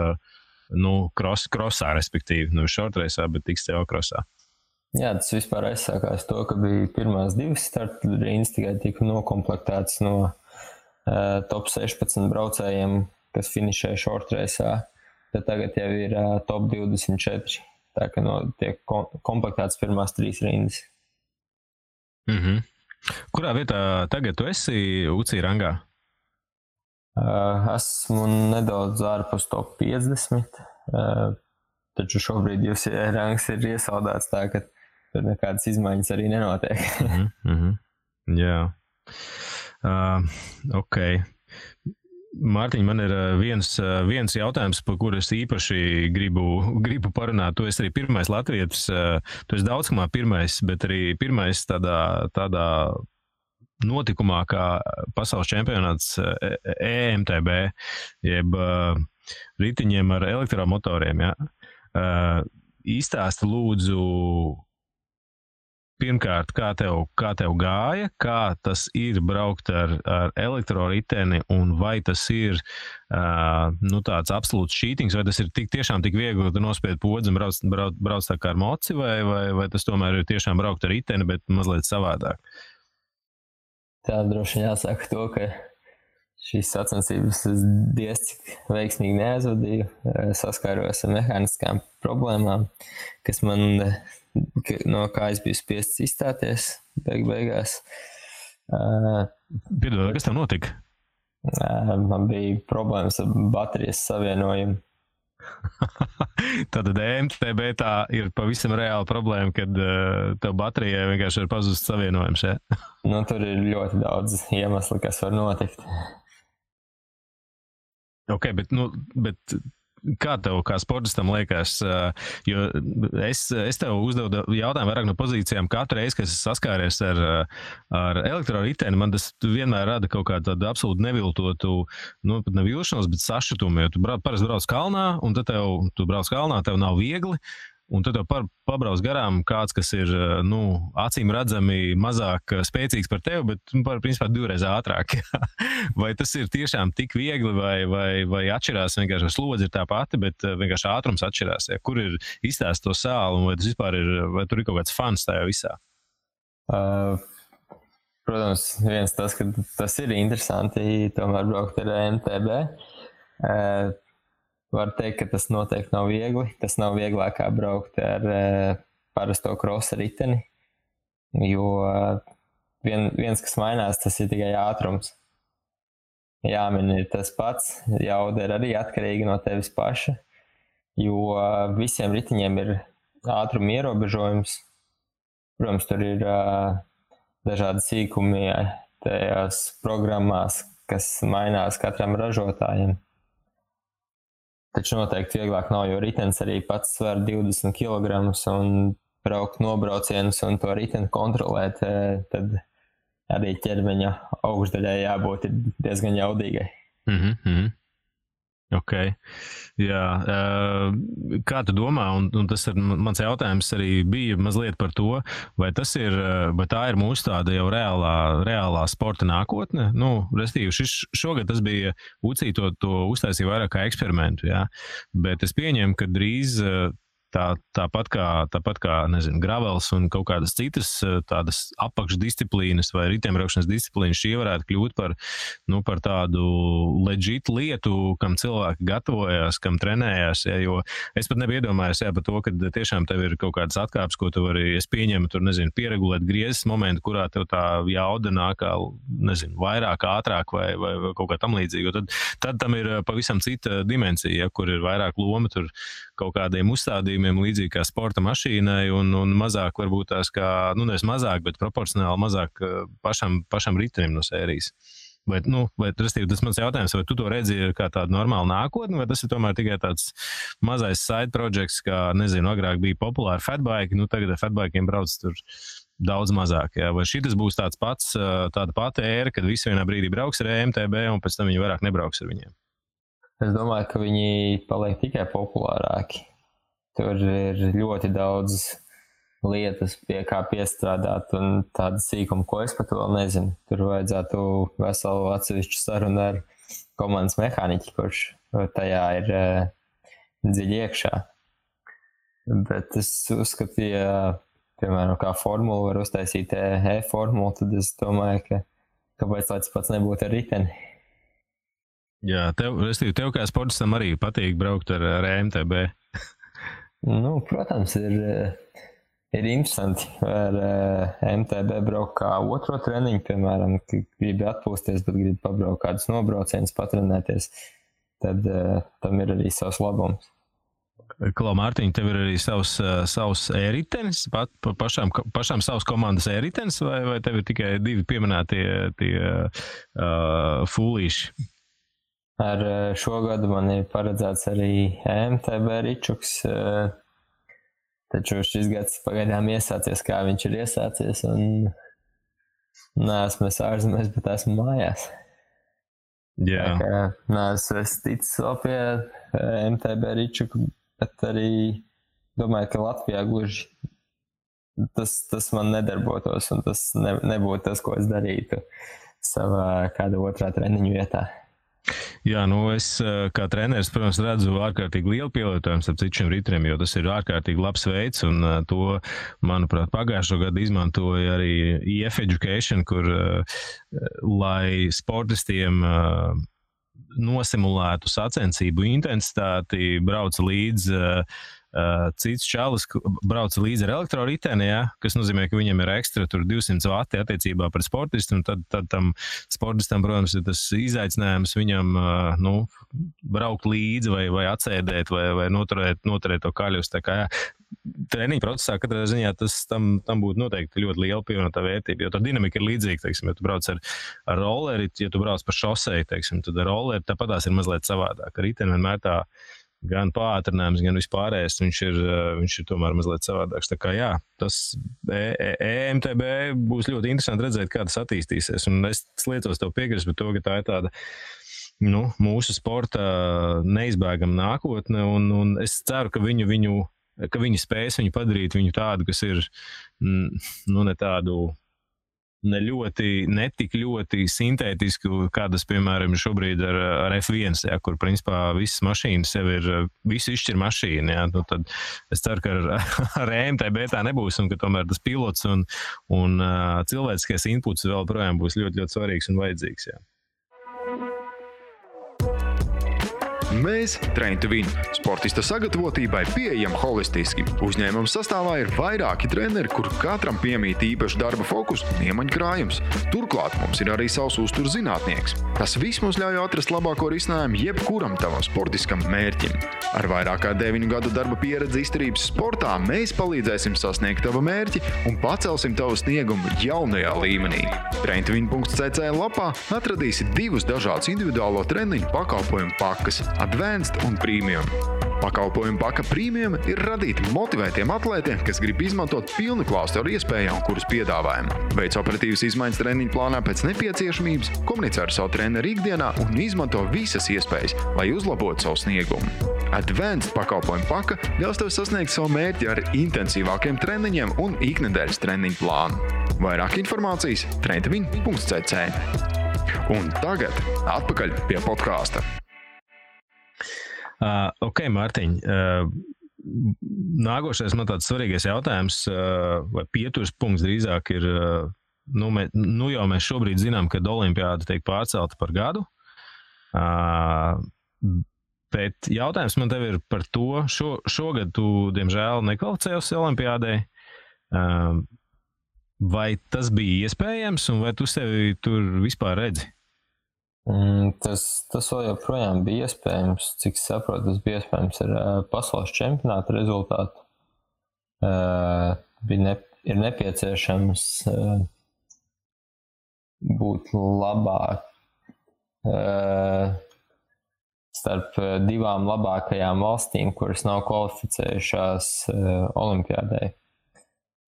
crossā, respektīvi, short raceā, bet tiks tev crossā. Jā, tas vispār aizsākās to, ka bija pirmās 2 starta rindas, tikai tika nokomplektēts no top 16 braucējiem, kas finišēja short raceā. Tad tagad jau ir top 24, tā ka tiek komplektēts pirmās 3 rindas. Mhm. Kurā vietā tagad tu esi UCI rangā? Esmu nedaudz ārpus top 50, taču šobrīd UCI rangs ir iesaldēts tā, ka tur nekādas izmaiņas arī nenotiek. Jā. Ok. Mārtiņ, man ir viens jautājums, par kuru es īpaši gribu parunāt. Tu esi arī pirmais latvietis, tu esi daudzkamā pirmais, bet arī pirmais tādā notikumā kā pasaules čempionāts EMTB, jeb ritiņiem ar elektromotoriem. Ja? Izstāsti lūdzu, pirmkārt, kā tev gāja, kā tas ir braukt ar elektroriteni, un vai tas ir tāds absolūts cheatings, vai tas ir tiešām tik viegli, ka tu nospied podzi un brauc tā kā ar moci, vai tas tomēr ir tiešām braukt ar riteni, bet mazliet savādāk? Tā droši jāsaka to, ka šīs sacensības es diezcik veiksmīgi neaizvadīju, saskāros ar mehāniskām problēmām, kas man no kā es biju spiests izstāties beigās. Piedod, kas tev notika? Man bija problēmas ar baterijas savienojumu. Tātad EMTB tā ir pavisam reāla problēma, kad tev baterijai vienkārši ir pazust savienojums, ja? Tur ir ļoti daudz iemeslu, kas var notikt. Ok, bet kā tev, kā sportistam liekas, jo es tev uzdevu jautājumu vairāk no pozīcijām katru reizi, kad es saskāries ar elektroriteni, man tas vienmēr rada kaut kādu tādu absolūti neviltotu, pat nevilšanos, bet sašutumu, jo tu parasti brauc kalnā, un tad tu brauc kalnā, tev nav viegli, un tad pabrauc garām kāds, kas ir, acīm redzami mazāk spēcīgs par tevi, bet, principā, 2 reizes ātrāk. Vai tas ir tiešām tik viegli, vai atšķirās, vienkārši slodze ir tā pati, bet vienkārši ātrums atšķirās? Ja? Kur ir izstāst to sāli, un vai tas vispār ir, vai tur ir kaut kāds fans tajā visā? Protams, viens tas, ka tas ir interesanti, tomēr braukt ar MTB. Var teikt, ka tas noteikti nav viegli. Tas nav vieglāk kā braukt ar parasto krosa riteni, jo viens, kas mainās, tas ir tikai ātrums. Jāmin ir tas pats, jauda ir arī atkarīga no tevis paša, jo visiem riteņiem ir ātruma ierobežojums. Protams, tur ir dažādi sīkumi tajās programmās, kas mainās katram ražotājiem. Taču noteikti vieglāk nav, jo ritens arī pats sver 20 kg un braukt nobraucienus un to riteni kontrolēt, tad arī ķermeņa augšdaļai jābūt diezgan jaudīgai. Ok, jā. Kā tu domā, un tas ir mans jautājums arī bija mazliet par to, vai tā ir mūsu tāda jau reālā sporta nākotne? Restīvi, šogad tas bija UCI to uztaisīja vairāk kā eksperimentu, jā, bet es pieņemu, ka drīz tāpat kā, nezinu, gravels un kaut kādas citas tādas apakšdisciplīnas vai riteņbraukšanas disciplīnas, šī varētu kļūt par tādu legit lietu, kam cilvēki gatavojās, kam trenējās, ja, jo es pat nebiju iedomājies, par to, ka tiešām tev ir kaut kādas atkāpes, ko tu vari, es pieņemu, tur, nezinu, pieregulēt griezes momentu, kurā tev tā jauda nāk, nezinu, vairāk, ātrāk vai kaut kā tam līdzīgi, jo tad tam ir pavisam cita dimensija, ja, kur ir vairāk loma, tur kaut kādiem uzstādījumiem līdzīgi kā sporta mašīnai un mazāk varbūt tās kā, nevis mazāk, bet proporcionāli mazāk pašam ritenim no sērijas. Vai restīvi, tas mans jautājums, vai tu to redzi kā tādu normālu nākotni, vai tas ir tomēr tikai tāds mazais side projects, kā, nezinu, agrāk bija populāri fatbike, tagad ar fatbikiem brauc tur daudz mazāk, jā. Vai šitas būs tāda pati ēra, kad visi vienā brīdī brauks ar MTB un pēc tam viņi vairāk nebrauks ar viņiem? Es domāju, ka viņi paliek tikai populārāki. Tur ir ļoti daudz lietas, pie kā piestrādāt un tāda sīkuma, ko es pat vēl nezinu. Tur vajadzētu veselu atsevišķu sarunu ar komandas mehāniķi, kurš tajā ir dziļi iekšā. Bet es uzskatu, ja, piemēram, kā formulu var uztaisīt e-formulu, tad es domāju, ka kāpēc tāds pats nebūtu ar riteni. Jā, tev kā sportistam arī patīk braukt ar MTB? Protams, ir interesanti ar MTB braukt kā otro treniņu, piemēram, ka gribi atpūsties, bet gribi pabraukt kādus nobraucienus, patrenēties, tad tam ir arī savs labums. Klau, Mārtiņ, tev ir arī savs e-ritenis, pašām savas komandas e-ritenis, vai tev ir tikai 2 pieminētie fūlīši? Ar šo gadu man ir paredzēts arī MTB ričuks, taču šis gads pagaidām iesācies, kā viņš ir iesācies, un neesmu es ārzemēs, bet esmu mājās. Jā. Neesmu es ticis vēl pie MTB ričuku, bet arī domāju, ka Latvijā gluži tas man nedarbotos, un tas nebūtu tas, ko es darītu savā kāda otrā treniņu vietā. Jā, es kā treneris, protams, redzu ārkārtīgi lielu pielietojumu starp citiem riteņiem, jo tas ir ārkārtīgi labs veids, un to, manuprāt, pagājušo gadu izmantoja arī EF Education, kur, lai sportistiem nosimulētu sacensību intensitāti, brauca līdz cits čalis brauca līdzi ar elektroriteni, ja, kas nozīmē, ka viņam ir ekstra 200 vati attiecībā pret sportistu, un tad tam sportistam, protams, ir tas izaicinājums viņam braukt līdzi vai atsēdēt vai noturēt to kaļus. Tā kā treniņa procesā katrā ziņā tam būtu noteikti ļoti liela pievienotā vērtība, jo tā dinamika ir līdzīga, teiksim, ja tu brauc ar rolleri, ja tu brauc pa šoseju, teiksim, tad ar rolleri tāpatās ir mazliet savādāk. Riteni vienmēr tā gan pātrinājums, gan vispārējais, viņš ir tomēr mazliet savādāks. Tā kā jā, tas EMTB būs ļoti interesanti redzēt, kā tas attīstīsies. Un es liecos tev piekrist par to, ka tā ir tāda mūsu sporta neizbēgama nākotne, un es ceru, ka viņu ka viņi spēs viņu padarīt viņu tādu, kas ir, ne tādu, ne tik ļoti sintētisku, kādas, piemēram, šobrīd ar F1, ja, kur, principā, visas mašīnas jau ir, visu izšķir mašīna, ja, nu, tad es ceru, ka ar EMTB tā nebūs, un ka tomēr tas pilots un cilvēciskais inputs vēl projām būs ļoti, ļoti svarīgs un vajadzīgs, ja. Mēs, Train to Win, sportista sagatavotībai pieejam holistiski. Uzņēmuma sastāvā ir vairāki treneri, kur katram piemīt īpaši darba fokus un iemaņu krājums. Turklāt mums ir arī savs uzturs zinātnieks. Tas viss mums ļauj atrast labāko risinājumu jebkuram tavam sportiskam mērķim. Ar vairāk kā 9 gadu darba pieredzi izturības sportā mēs palīdzēsim sasniegt tavu mērķi un pacelsim tavu sniegumu jaunajā līmenī. traintovin.cc lapā atradīsi 2 dažādus individuālo treniņu pakalpojumu pakas – Advanced un Premium. Pakalpojumu paka Premium ir radīti motivētiem atlētiem, kas grib izmantot pilnu klāstu ar iespējām, kuras piedāvājam. Veic operatīvas izmaiņas treniņu plānā pēc nepieciešamības, komunicē ar savu treneru ikdienā un izmanto visas iespējas, lai uzlabotu savu sniegumu. Advanced pakalpojumu paka ļaus tev sasniegt savu mērķi ar intensīvākiem treniņiem un iknedēļas treniņu plānu. Vairāk informācijas traintovin.cc. Un tagad atpakaļ pie podkāsta. Ok, Mārtiņ, nākošais man tāds svarīgais jautājums, vai pieturs punkts drīzāk ir, jau mēs šobrīd zinām, ka olimpiāda tiek pārcelta par gadu, bet jautājums man tev ir par to, šogad tu, diemžēl, nekvalificējies olimpiādai, vai tas bija iespējams un vai tu sevi tur vispār redzi? Tas vēl joprojām bija iespējams, cik saprotu, tas bija iespējams ar pasaules čempionāta rezultātu. Ir nepieciešams būt labāk starp 2 labākajām valstīm, kuras nav kvalificējušās olimpiādai.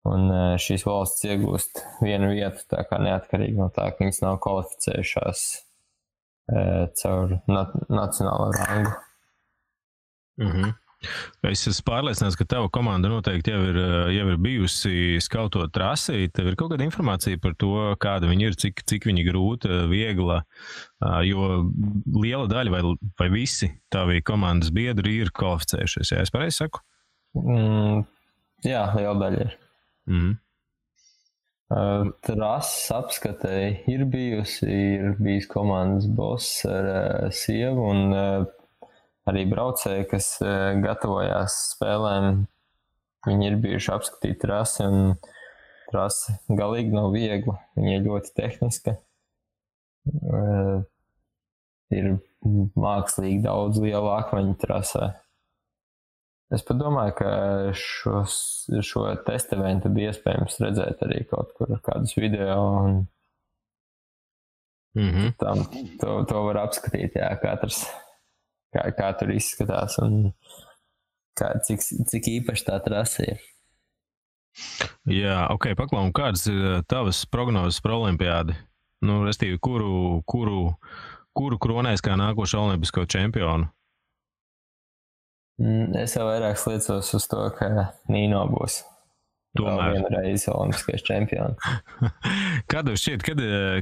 Un šīs valsts iegūst 1 vietu, tā kā neatkarīgi no tā, ka viņas nav kvalificējušās caur nacionālo rangu. Es esmu pārliecināts, ka tava komanda noteikti jau ir bijusi skautot trasi. Tev ir kaut kāda informācija par to, kāda viņi ir, cik viņi grūta, viegla, jo liela daļa vai visi tavi komandas biedri ir kvalificējušies, ja es pareizi saku? Jā, liela daļa ir. Trases apskatei ir bijis komandas boss ar sievu un arī braucēji, kas gatavojās spēlēm. Viņi ir bijuši apskatīt trasi un trasi galīgi nav viegla. Viņa ir ļoti tehniska. Ir mākslīgi daudz lielu akmeņu trasē. Es padomāju, ka šo testa eventu bija iespējams redzēt arī kaut kur kādus video un to var apskatīt, jā, katrs, kā tur izskatās un cik īpaši tā trasa ir. Jā, ok, paklau, kādas ir tavas prognozes par olimpiādi? Restīvi, kuru kronēs kā nākošo olimpisko čempionu? Es jau vairāk sliecos uz to, ka Nino būs vēl vienreiz olimpiskais čempions. Kā tev šķiet,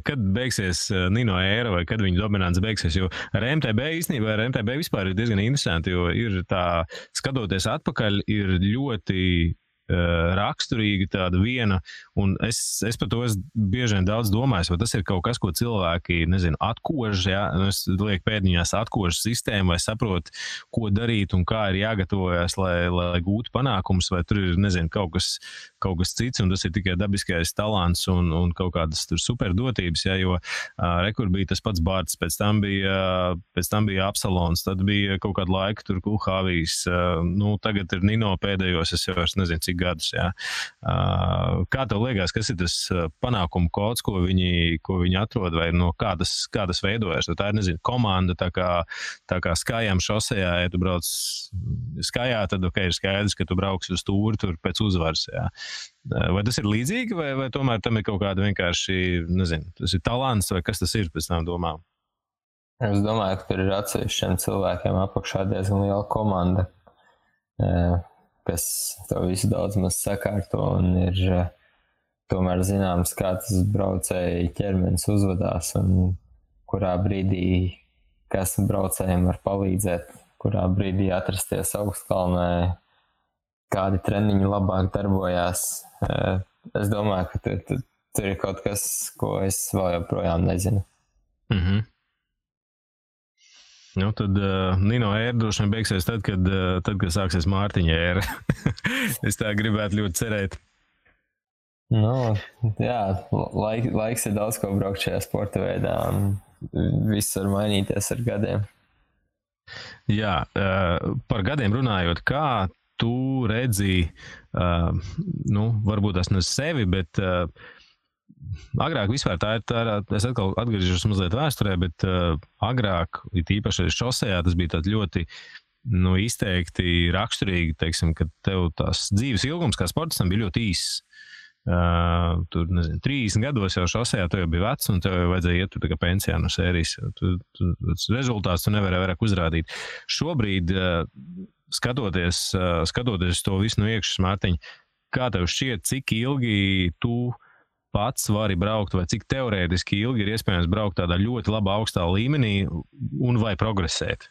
kad beigsies Nino ēra vai kad viņa dominants beigsies? Jo ar MTB īstenībā, ar MTB vispār ir diezgan interesanti, jo ir tā, skatoties atpakaļ, ir ļoti raksturīga tāda viena, un es par to bieži vien daudz domāju, vai tas ir kaut kas, ko cilvēki, atkož, ja? Es lieku pēdiņās atkož sistēmu, vai saprot, ko darīt un kā ir jāgatavojas, lai gūtu panākumus, vai tur ir, kaut kas cits, un tas ir tikai dabiskais talants un kaut kādas tur superdotības, ja? Jo rekur bija tas pats Bārts, pēc tam bija Absalons, tad bija kaut kādu laiku tur Kulhāvijs, tagad ir Nino pēdējos, es jau vairs nezinu, cik gadus, jā. Kā tev liekas, kas ir tas panākumu kods, ko viņi atrod, vai no kādas veidojas? Tā ir, komanda, tā kā skājām šosejā, ja tu brauc skājā, tad ir skaidrs, ka tu brauksi uz tūri tur pēc uzvaras, jā. Vai tas ir līdzīgi, vai tomēr tam ir kaut kāda vienkārši, tas ir talants, vai kas tas ir pēc tām domām? Es domāju, ka tur ir atsevišķiem cilvēkiem apakšā diezgan liela komanda. kas to visu daudz maz sakārto un ir tomēr zināms, kā tas braucēji ķermenis uzvedās un kurā brīdī kas braucējiem var palīdzēt, kurā brīdī atrasties augstkalnē, kādi treniņi labāk darbojās. Es domāju, ka tur ir kaut kas, ko es vēl joprojām nezinu. Nu, tad Nino ēra droši vien beigsies tad, kad sāksies Mārtiņa ēra. Es tā gribētu ļoti cerēt. Nu, jā, laiks ir daudz ko braukt šajā sporta veidā un viss var mainīties ar gadiem. Jā, par gadiem runājot, kā tu redzi, varbūt tas ne sevi, bet agrāk vispār tā ir, es atkal atgriežos mazliet vēsturē, bet agrāk, it īpaši šosejā, tas bija tāds ļoti izteikti raksturīgi, teiksim, ka tev tās dzīves ilgums kā sportistam bija ļoti īss. Tur, 30 gados jau šosejā tu jau bija vecs un tev jau vajadzēja iet tur tā kā pensijā no sērijas. Rezultāts tu nevarēja vairāk uzrādīt. Šobrīd, skatoties to visu no iekšas, Mārtiņ, kā tev šķiet, cik ilgi tu pats vari braukt, vai cik teorētiski ilgi ir iespējams braukt tādā ļoti labā augstā līmenī un vai progresēt?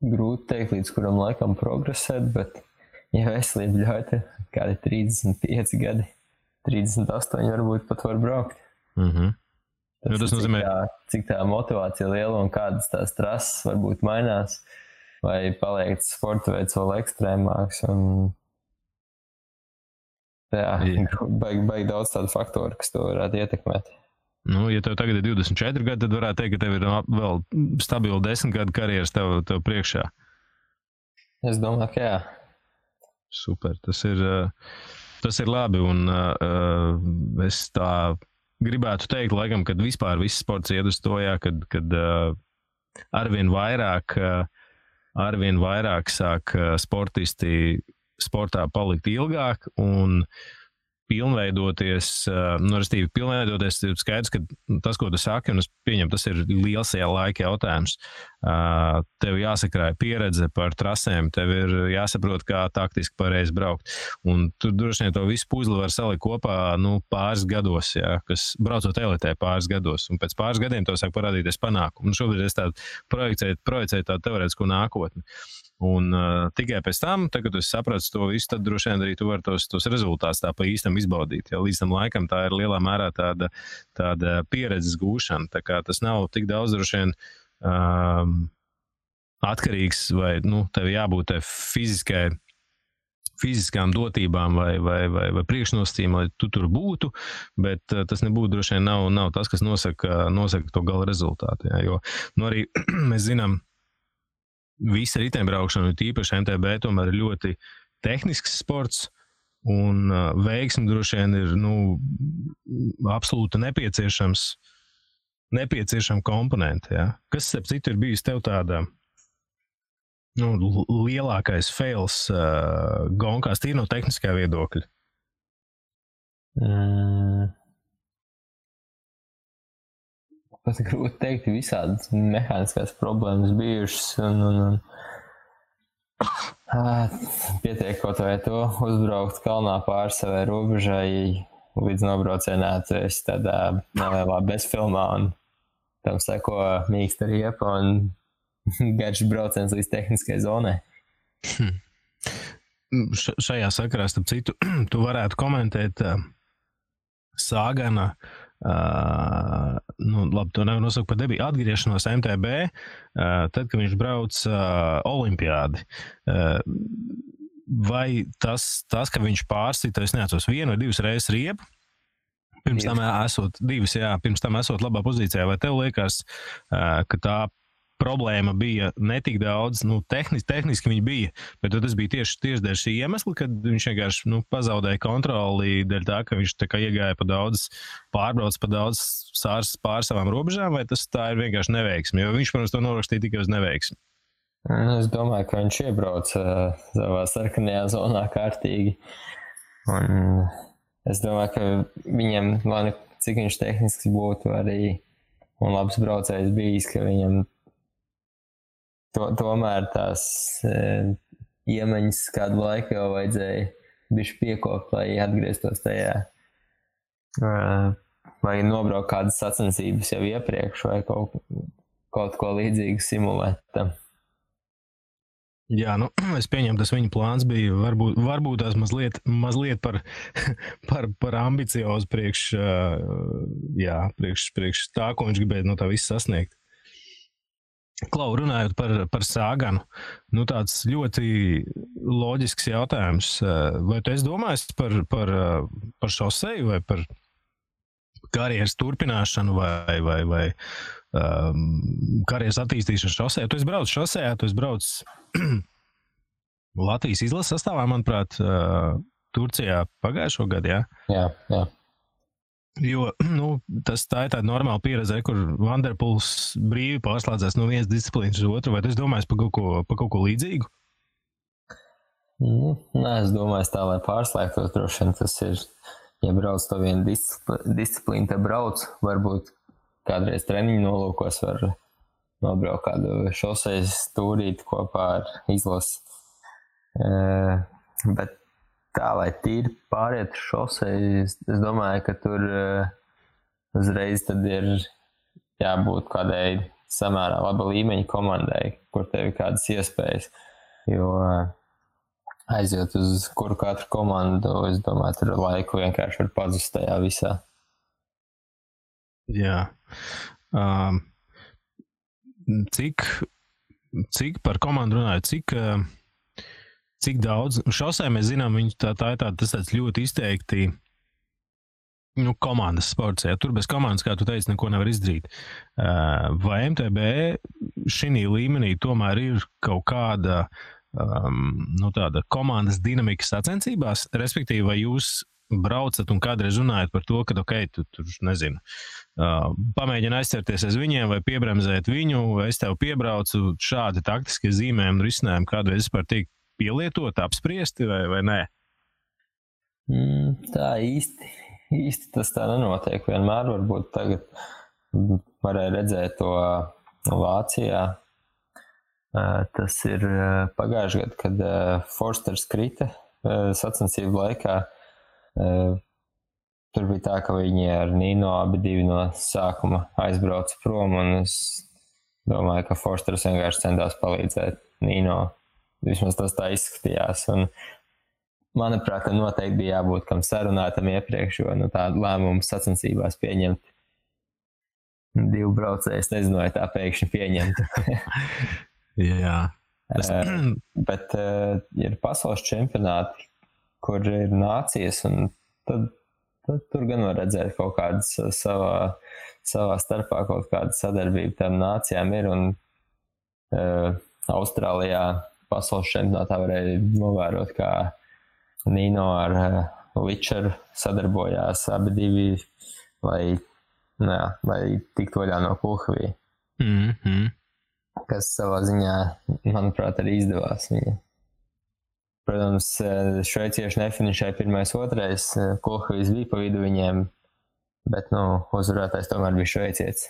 Grūti teikt, līdz kuram laikam progresēt, bet ja veselība ļauj, kādi 35 gadi, 38 varbūt pat var braukt. Tas nozīmē, cik tā motivācija liela un kādas tās trases varbūt mainās, vai paliek sporta veids vēl ekstrēmāks. Jā, baigi daudz tādu faktoru, kas to varētu ietekmēt. Nu, ja tev tagad ir 24 gadi, tad varētu teikt, ka tev ir vēl stabili 10 gadu karjeras tev priekšā. Es domāju, ka jā. Super, tas ir labi, un es tā gribētu teikt, laikam, kad vispār viss sports iet uz to, jā, kad arvien vairāk sāk sportisti sportā palikt ilgāk un pilnveidoties, ir skaidrs, ka tas, ko tu saki, un es pieņemu, tas ir liels laika jautājums. Tev jāsakrāja pieredze par trasēm, tev ir jāsaprot, kā taktiski pareizi braukt. Un tu droši vien to visu puzli var salikt kopā, pāris gados, jā, kas braucot elitē pāris gados. Un pēc pāris gadiem tev sāk parādīties panākumu. Un šobrīd es tādu projicēju tādu teorētisku nākotni. Un tikai pēc tam, kad tu saprati to visu, tad droši vien arī tu vari tos rezultātus tā pa īstam izbaudīt. Ja līdz tam laikam tā ir lielā mērā tāda pieredzes gūšana. Tā kā tas nav tik daudz droši vien atkarīgs vai tev jābūt fiziskām dotībām vai priekšnosacījumiem, lai tu tur būtu, bet tas nebūtu droši vien nav tas, kas nosaka to gala rezultātu. Jā, jo arī mēs zinām, visa riteņbraukšana, tīpaši MTB, tomēr ir ļoti tehnisks sports, un veiksmi droši vien ir absolūti nepieciešama komponente. Ja? Kas, starp citu, ir bijis tev tāda lielākais fails gonkās, tīri no tehniskā viedokļa? Pat grūti teikt, visādas mehāniskās problēmas bijušas un pietiek kaut vai to uzbraukt kalnā pāri savai robežai, līdz nobraucienā tu esi tādā nelielā bezfilmā un tam seko mīksta riepa un garš brauciens līdz tehniskai zonai. Šajā sakarā, starp citu, tu varētu komentēt Sāgana, labi, to nevar nosaukt par debiju, atgriešanos MTB, tad, kad viņš brauc olimpiādi. Vai tas, ka viņš pārsita, es neatceros, 1 vai 2 reizes riepu, pirms tam esot labā pozīcijā, vai tev liekas, ka tā problēma bija netik daudz, tehniski viņa bija, bet tas bija tieši dēļ šī iemesla, kad viņš vienkārši pazaudēja kontroli dēļ tā, ka viņš tā kā iegāja pārbrauc pa daudz pār savām robežām, vai tas tā ir vienkārši neveiksmi, jo viņš, protams, to norakstīja tikai uz neveiksmi. Es domāju, ka viņš iebrauc savā sarkanajā zonā kārtīgi, un es domāju, ka viņam, cik viņš tehniski būtu arī un labs braucējs bijis, ka viņam tomēr tās iemaņas kādu laiku jau vajadzēja bišķi piekopt, lai atgrieztos tajā. Vai nobraukt kādas sacensības jau iepriekš, vai kaut ko līdzīgu simulēt tam. Jā, es pieņemu, tas viņa plāns bija varbūt tās mazliet par ambiciozu priekš tā, ko viņš gribēja no tā visu sasniegt. Klau, runājot par Saganu, tāds ļoti loģisks jautājums. Vai tu esi domājis par šoseju vai par karjeras turpināšanu vai karjeras attīstīšanu šosejā? Tu esi braucis šosejā, tu esi braucis Latvijas izlases sastāvā, manuprāt, Turcijā pagājušo gadu, jā? Jā. Jo, tā ir tāda normāla pieredze, kur Vanderpuls brīvi pārslēdzās no vienas disciplīnas uz otru, vai tu esi domājis par kaut ko līdzīgu? Nē, es domāju, tā, lai pārslēgtos, droši vien tas ir, ja brauc to vienu disciplīnu, te brauc, varbūt kādreiz treniņu nolūkos var nobraukt kādu šosejas stūrīti kopā ar izlasi. Bet tā, lai tīri pāriet šoseju, es domāju, ka tur uzreiz tad ir jābūt kādai samērā laba līmeņa komandai, kur tev ir kādas iespējas. Jo aiziet uz kuru katru komandu, es domāju, tur laiku vienkārši var pazust tajā visā. Jā. Cik par komandu runāju, cik daudz, šosē mēs zinām, tas tāds ļoti izteikti komandas sports, ja tur bez komandas, kā tu teici, neko nevar izdarīt. Vai MTB šī līmenī tomēr ir kaut kāda tāda komandas dinamika sacensībās, respektīvi, vai jūs braucat un kādreiz runājat par to, ka, tu tur, nezinu, pamēģini aizcerties aiz viņiem vai piebremzēt viņu, vai es tev piebraucu, šādi taktiskie zīmējumi un risinājumi kādreiz vispār tiek pielietot, apspriesti vai nē? Tā īsti tas tā nenotiek. Vienmēr varbūt tagad varēja redzēt to Vācijā. Tas ir pagājuši gadu, kad Forsters krita sacensību laikā. Tur bija tā, ka viņi ar Nino abi divi no sākuma aizbrauca prom, un es domāju, ka Forsters vienkārši centās palīdzēt Nino. Vismaz tas tā izskatījās. Un, manuprāt, noteikti bija jābūt kam sarunātam iepriekš, jo tādu lēmumu sacensībās pieņemt divu braucēju, es nezinu, vai tā pēkšņi pieņemtu. Jā. Bet ir pasaules čempionāti, kur ir nācijas, un tad tur gan var redzēt kaut kādas savā starpā kaut kāda sadarbība tām nācijām ir, un Austrālijā pasaules čempionātā varēja novērot, kā Nino ar Ličeru sadarbojās abi divi, lai tiktu vaļā no Kulhavī. Kas savā ziņā, manuprāt, arī izdevās viņa. Protams, šveicieši nefinišēja 1.2. Kulhavīs bija pa vidu viņiem, bet, uzvarētājs tomēr bija šveicietis.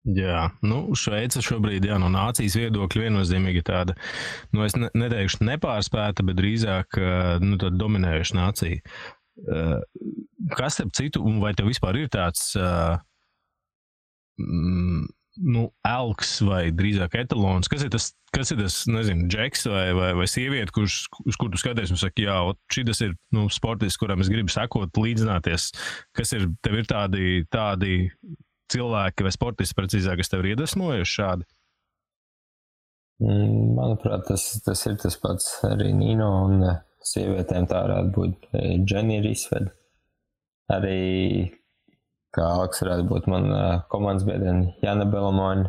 Jā, Šveica šobrīd, no nācijas viedokļa viennozīmīgi tāda, es neteikšu nepārspēta, bet drīzāk, tāda dominējuša nācija. Kas starp citu, un vai tev vispār ir tāds, elks vai drīzāk etalons, kas ir tas, nezinu, džeks vai sieviete, uz kur tu skaties un saki, jā, šitas ir, sportists, kuram es gribu sekot, līdzināties, tev ir tādi cilvēki vai sportisti precīzāk, kas tev ir iedvesmojuši šādi? Manuprāt, tas ir tas pats arī Nino, un sievietēm tā varētu būt Dženi Risved. Arī kā Aleks varētu būt man komandas biedrene Jana Belamoni,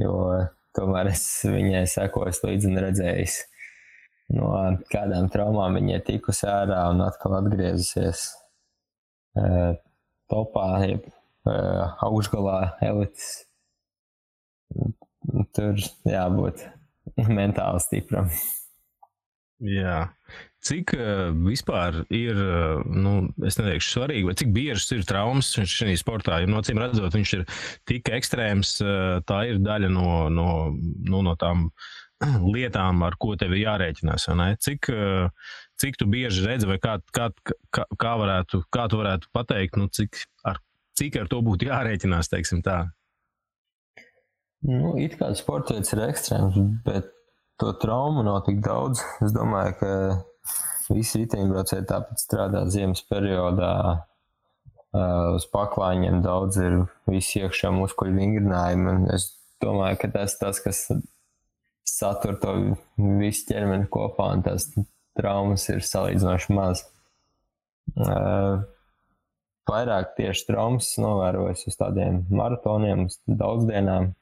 jo tomēr es viņai sekoju līdzi un redzējis, no kādām traumām viņa ir tikusi ārā un atkal atgriezusies topā, augšgalā elites. Tur jābūt mentāli stipram. Jā. Cik vispār ir, es neteikšu svarīgi, vai cik biežas ir traumas šajā sportā? Jo, acīm redzot, viņš ir tik ekstrēms, tā ir daļa no tām lietām, ar ko tev ir jārēķinās. Cik tu bieži redzi, vai kā tu varētu pateikt, cik ar to būtu jārēķinās, teiksim tā? It kā sporta veids ir ekstrēms, bet to traumu nav tik daudz. Es domāju, ka visi riteņbraucēji tāpat strādā ziemas periodā. Uz paklāņiem daudz ir visi iekšā muskuļu vingrinājumi. Es domāju, ka tas, kas satur to visu ķermeni kopā, un tās traumas ir salīdzinoši maz. Vairāk tieši traumas novērojas uz tādiem maratoniem, uz daudzdienām,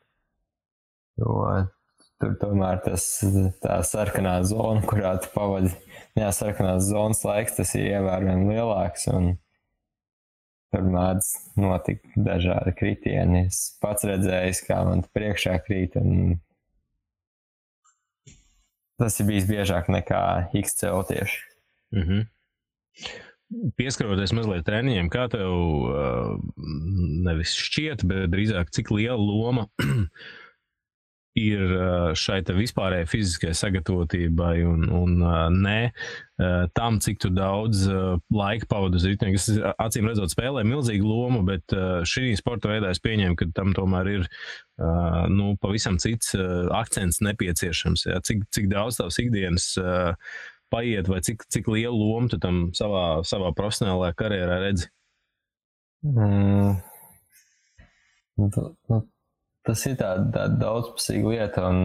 jo tur tomēr tā sarkanā zona, kurā tu pavadi, sarkanās zonas laiks, tas ir ievērojami lielāks, un tur mēdz notikt dažādi kritieni. Es pats redzējis, kā man priekšā krīt, un tas ir bijis biežāk nekā XCO tieši. Mhm. Pieskaroties mazliet treniņiem, kā tev nevis šķiet, bet drīzāk cik liela loma ir šai te vispārējai fiziskajai sagatavotībai un tam, cik tu daudz laika pavadi uz riteņa, kas acīm redzot spēlē milzīgu lomu, bet šī sporta veidā es pieņēmu, ka tam tomēr ir pavisam cits akcents nepieciešams. Ja? Cik daudz tavs ikdienas paiet, vai cik lielu lomu tu tam savā profesionālajā karjerā redzi? Tas ir tāda daudzpusīga lieta, un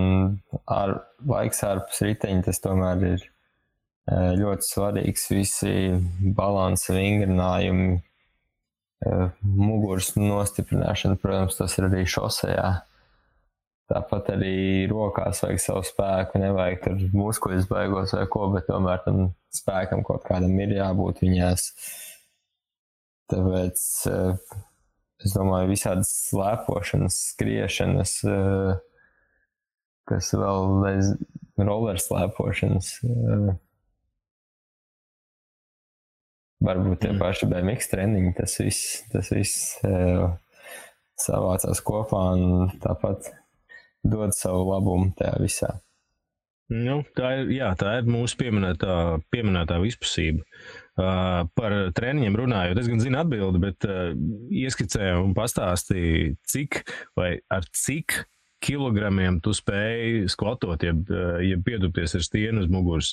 laiks ārpus riteņa tas tomēr ir ļoti svarīgs. Visi balansa vingrinājumi, muguras nostiprināšana, protams, tas ir arī šosejā. Tāpat arī rokās vajag savu spēku, nevajag tur muskuļus baigos vai ko, bet tomēr tam spēkam kaut kādam ir jābūt viņās. Tāpēc es domāju, visādas slēpošanas, skriešanas, kas vēl roller slēpošanas, varbūt tie paši BMX treniņi, tas viss savācās kopā un tāpat dod savu labumu tajā visā. Tā ir mūsu pieminētā vispusība. Par treniņiem runājot, es gan zinu atbildi, bet ieskicēju un pastāstīju, ar cik kilogramiem tu spēj skvatot, ja pietupties ar stieni uz muguras,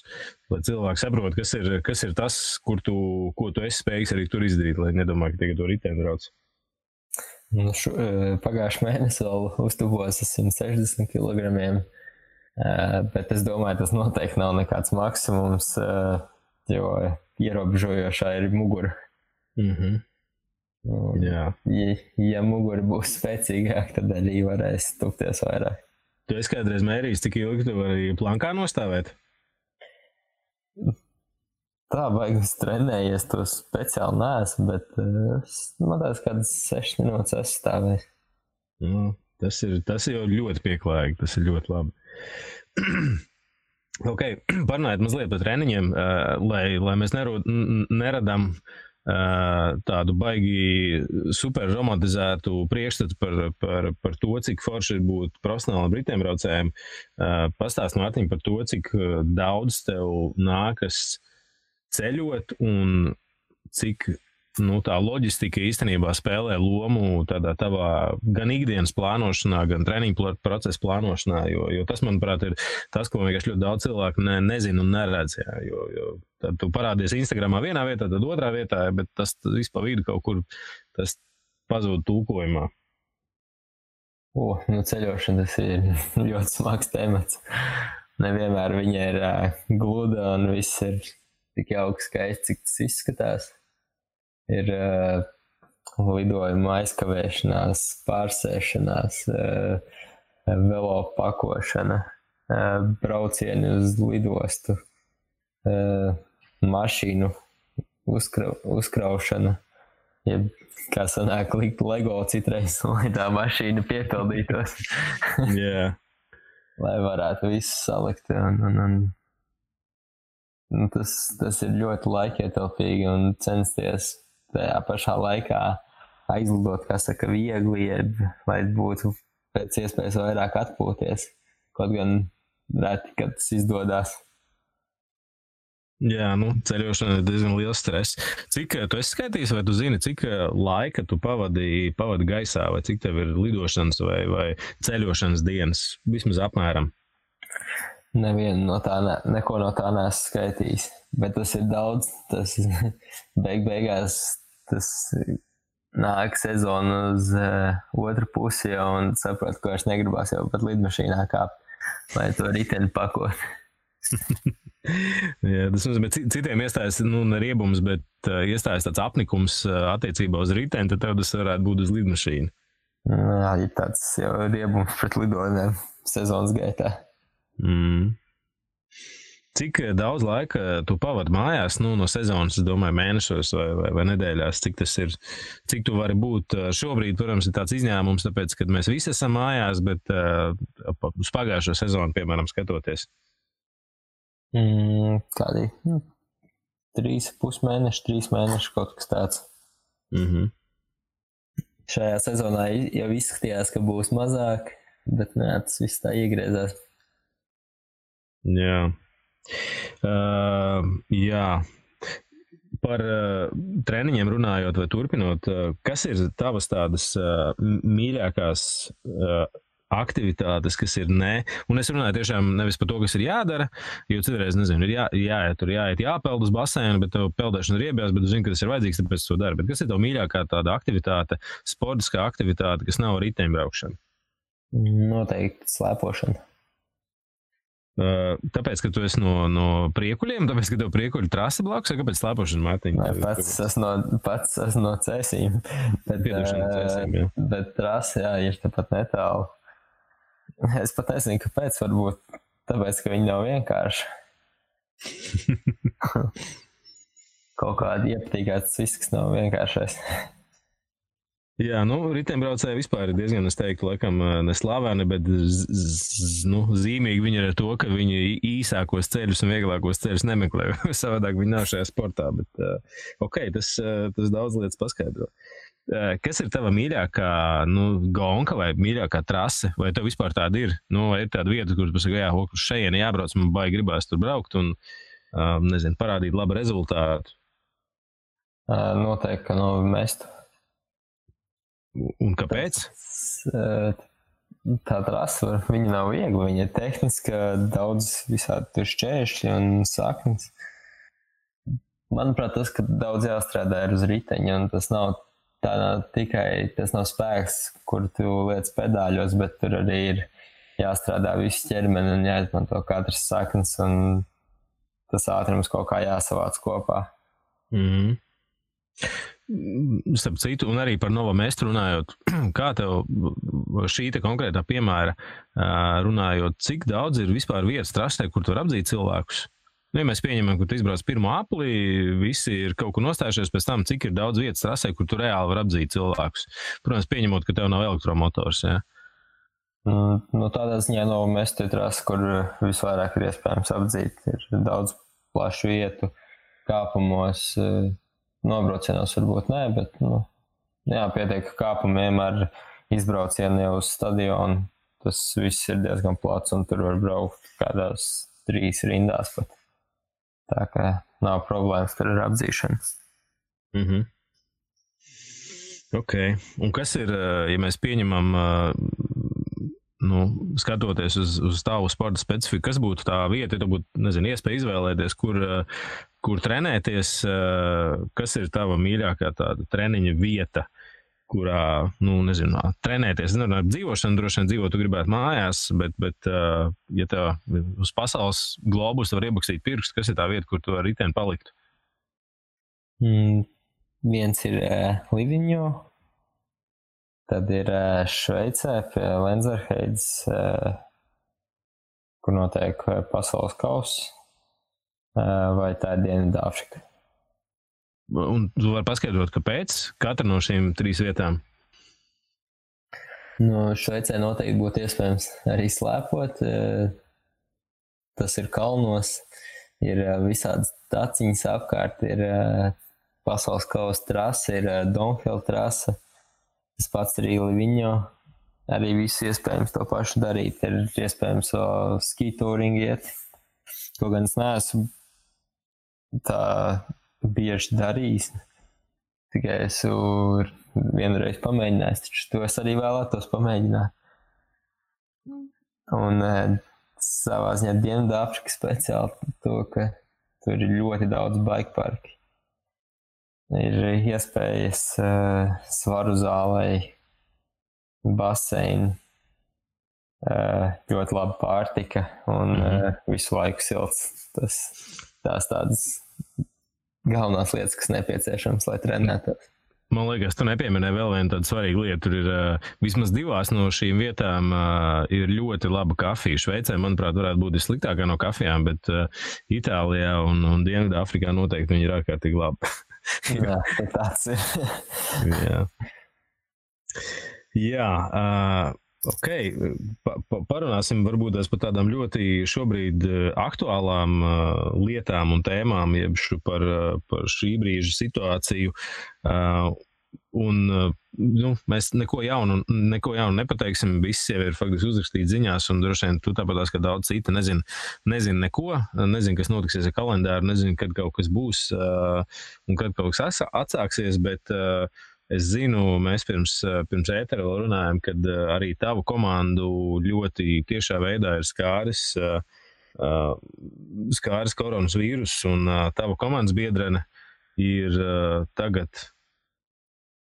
lai cilvēki saprot, kas ir tas, ko tu esi spējīgs arī tur izdarīt, lai nedomā, ka tagad to riteni brauc. Pagājuši mēnesi vēl uztubos 160 kilogramiem, bet es domāju, tas noteikti nav nekāds maksimums, jo ierobežojošā ir mugura. Mhm. Jā. Ja mugura būs spēcīgāk, tad arī varēs tupties vairāk. Tu esi kādreiz mērījis, cik ilgi tu vari plankā nostāvēt? Tā baigas trenējies, to speciāli neesmu, bet man tās kādas 6 minūtes esmu stāvējis. Tas ir ļoti pieklājīgi, tas ir ļoti labi. Ok, parunājot mazliet par treniņiem, lai mēs neradām tādu baigi super romantizētu priekšstatu par to, cik forši ir būt profesionālam riteņbraucējiem. Pastāst, Mārtiņ, par to, cik daudz tev nākas ceļot un cik tā loģistika īstenībā spēlē lomu tādā tavā gan ikdienas plānošanā, gan treniņu procesa plānošanā, jo tas, manuprāt, ir tas, ko vienkārši ļoti daudz cilvēku nezina un neredz. Jā, jo tad tu parādies Instagramā vienā vietā, tad otrā vietā, bet tas viss pa vidu kaut kur tas pazūd tulkojumā. Ceļošana tas ir ļoti smags temats. Nevienmēr viņa ir gluda un viss ir tik jauki skaisti, cik tas izskatās. Ir lidojuma aizkavēšanās, pārsēšanās, velo pakošana, braucieni uz lidostu, mašīnu uzkraušana. Kā sanāk likt Lego citreiz, lai tā mašīna piepildītos. Yeah. Lai varētu visu salikt un tas ir ļoti laikietilpīgi un censties tajā pašā laikā aizlidot, kā saka, viegli, lai būtu pēc iespējas vairāk atpūties. Kaut gan reti, kad tas izdodās. Jā, ceļošana ir diezgan liels stress. Cik tu esi skaitījis, vai tu zini, cik laika tu pavadi gaisā, vai cik tev ir lidošanas vai ceļošanas dienas, vismaz apmēram? Nevienu no tā, neko no tā neesmu skaitījis, bet tas ir daudz, tas beigās tas nāk sezona uz otru pusi jau un saprot, ka vairs negribās jau pat lidmašīnā kāpt, lai to riteni pakot. Jā, tas nozīmē, citiem iestājas riebums, bet iestājas tāds apnikums attiecībā uz riteni, tad tev tas varētu būt uz lidmašīnu. Jā, ir tāds jau riebums pret lidojumiem sezonas gaitā. Cik daudz laika tu pavadi mājās, no sezonas, es domāju, mēnešos vai nedēļās, cik tas ir, cik tu vari būt šobrīd, protams, ir tāds izņēmums, tāpēc, kad mēs visi esam mājās, bet uz pagājušo sezonu, piemēram, skatoties. Kādi 3,5 mēneši, 3 mēneši, kaut kas tāds. Šajā sezonā jau izskatījās, ka būs mazāk, bet tas viss tā iegriezās. Jā. Jā. Par treniņiem runājot vai turpinot, kas ir tavas tādas mīļākās aktivitātes, kas ir un es runāju tiešām nevis par to, kas ir jādara, jo citreiz, nezinu, ir jāiet jāpeld uz baseinu, bet tev peldēšana ir iebjās, bet tu zini, ka tas ir vajadzīgs, tāpēc to dara. Bet kas ir tev mīļākā tāda aktivitāte, sportiskā aktivitāte, kas nav riteņbraukšana? Noteikti slēpošana. Tāpēc, ka tu esi no priekuļiem, tāpēc, ka tev priekuļu trase blakus, vai kāpēc slēpošana, Mārtiņ? Pats esmu no Cēsīm, bet trase, ir tāpat netālu. Es pat nezinu, kāpēc, varbūt tāpēc, ka viņi nav vienkārši. Kaut kādi iepatīkās viss, kas nav vienkāršais. Jā, riteņbraucēji vispār ir diezgan, es teiktu, laikam neslaveni, bet zīmīgi viņi ir ar to, ka viņi īsākos ceļus un vieglākos ceļus nemeklē. Savādāk viņi nav šajā sportā, bet tas daudz lietas paskaidro. Kas ir tava mīļākā gonka vai mīļākā trase? Vai tev vispār tāda ir? Vai ir tāda vieta, kur tu pasaka, uz šejieni jābrauc, man baigi gribās tur braukt un, nezinu, parādīt labu rezultātu? Noteikti, ka Mestu. Un kāpēc? Tā trase, viņa nav viegla, viņa ir tehniska, daudz visādi tur šķēršļi un saknes. Manuprāt, tas, ka daudz jāstrādā ir uz riteņa, un tas nav spēks, kur tu liec pedāļos, bet tur arī ir jāstrādā visu ķermeni un jāizmanto katras saknes, un tas ātrums kaut kā jāsavāc kopā. Starp citu, un arī par Novo Mestu runājot, kā tev šī konkrētā piemēra runājot, cik daudz ir vispār vietas trasē, kur tu var apdzīt cilvēkus? Ja mēs pieņemam, ka tu izbrauc pirmo apli, visi ir kaut kur nostājušies pēc tam, cik ir daudz vietas trasē, kur tu reāli var apdzīt cilvēkus. Protams, pieņemot, ka tev nav elektromotors, jā? Tādā ziņā Novo Mestu ir trase, kur visvairāk ir iespējams apdzīt. Ir daudz plašu vietu, kāpumos, nobraucienos varbūt nē, bet, pietiek kāpumiem ar izbraucienu jau uz stadionu. Tas viss ir diezgan plats, un tur var braukt kādās 3 rindās pat. Tā kā nav problēmas ar apdzīšanu. Ok. Un kas ir, ja mēs pieņemam, skatoties uz tavu sporta specifiku, kas būtu tā vieta, ja tu būtu, nezinu, iespēja izvēlēties, kur trenēties, kas ir tava mīļākā tāda treniņa vieta, kurā, nezinu, trenēties. Ar dzīvošanu droši vien dzīvot, tu gribētu mājās, bet ja tev uz pasaules globus var iebakstīt pirkstu, kas ir tā vieta, kur tu ar riteni paliktu? Viens ir Livigno, tad ir Šveicē pie Lenzerheides, kur notiek pasaules kauss, vai tā ir Dienvidāfrika. Un tu vari paskaidrot, kāpēc katra no šīm 3 vietām? Šveicē noteikti būtu iespējams arī slēpot. Tas ir kalnos. ir visādas taciņas apkārt, ir pasaules kausa trasa, ir Downhill trasa, tas pats arī Livigno, arī viss iespējams to pašu darīt, ir iespējams ski touring iet, ko gan es neesmu tā bieži darījis, tikai esmu vienreiz pamēģinājis, taču to es arī vēlētos pamēģināt. Un savā ziņā Dienvidāfrika speciāli to, ka tur ir ļoti daudz bike parki. Ir iespējas svaru zālei, baseini, ļoti laba pārtika un visu laiku silts. Tās tādas galvenās lietas, kas nepieciešams, lai trenētos. Man liekas, tu nepieminēji vēl vienu tādu svarīgu lietu. Tur ir vismaz 2 no šīm vietām ir ļoti laba kafija. Šveicē, manuprāt, varētu būt vissliktākā no kafijām, bet Itālijā un Dienvidāfrikā noteikti viņi ir ārkārtīgi labi. Jā, tāds ir. Jā, ok. Parunāsim varbūt par tādām ļoti šobrīd aktuālām lietām un tēmām, jeb par šī brīža situāciju. Mēs neko jaunu nepateiksim, viss jau ir faktiski uzrakstīts ziņās, un droši vien tu tāpatās, ka daudz cita nezin neko, nezin, kas notiksies ar kalendāru, nezin, kad kaut kas būs un kad kaut kas atsāksies, bet es zinu, mēs pirms ētera vēl runājam, kad arī tavu komandu ļoti tiešā veidā ir skāris koronas vīrus, un tava komandas biedrene ir tagad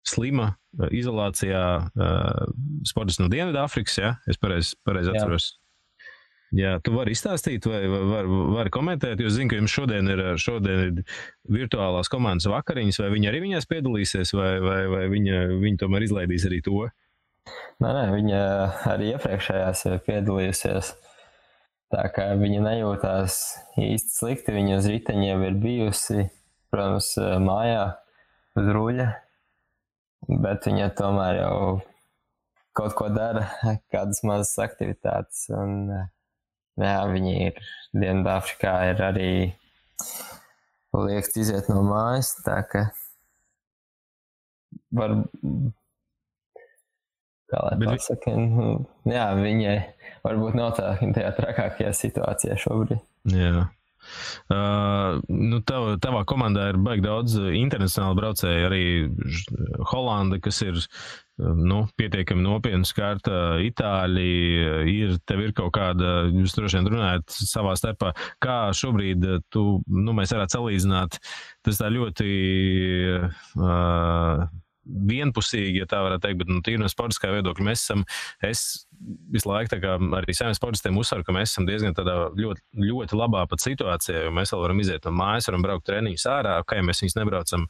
slima izolācijā, sportists no Dienvidāfrikas, ja? Es pareizi atceros. Jā, tu vari izstāstīt vai vari komentēt, jo zinu, ka jums šodien ir virtuālās komandas vakariņas, vai viņi arī viņās piedalīsies, vai viņi tomēr izlaidīs arī to? Nē, viņa arī iepriekšējās piedalījusies, tā kā viņa nejūtās īsti slikti, viņa uz riteņiem ir bijusi, protams, mājā uz ruļa, bet viņa tomēr jau kaut ko dara, kādas mazas aktivitātes, un jā, viņi ir Dienvidāfrikā ir arī liekts iziet no mājas, tā ka var, kā lai pasaka, jā, viņai varbūt nav tajā trakākajā situācijā šobrīd. Jā. Tavā komandā ir baigi daudz internacionāli braucēji, arī Holanda, kas ir pietiekami nopietni skārta, Itāļi, tev ir kaut kāda, jūs droši vien runājat savā starpā, kā šobrīd mēs varētu salīdzināt, tas tā ļoti vienpusīgi, ja tā varētu teikt, bet tīri no sportiskā viedokļa es visu laiku tā kā arī saviem sportistiem uzsveru, ka mēs esam diezgan tādā ļoti, ļoti labā pat situācijā, jo mēs vēl varam iziet no mājas, varam braukt treniņus ārā, ja mēs viņus nebraucam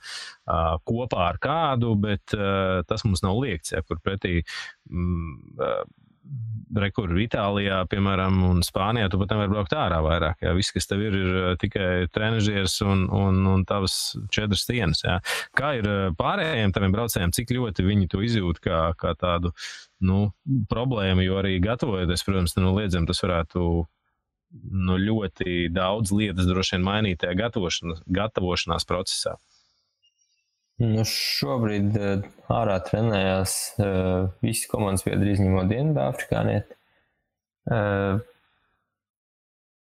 kopā ar kādu, bet tas mums nav liekts, ja, kur pretī rekur Itālijā, piemēram, un Spānijā, tu pat nevar braukt ārā vairāk. Jā. Viss, kas tev ir tikai trenažieris un tavas 4 stienas. Jā. Kā ir pārējiem taviem braucējiem, cik ļoti viņi to izjūt kā tādu problēmu, jo arī gatavojoties, protams, noliedzam, tas varētu ļoti daudz lietas droši vien mainīt tajā gatavošanās procesā. Šobrīd ārā trenējās visi komandas biedri izņemot Dienvidāfrikānieti.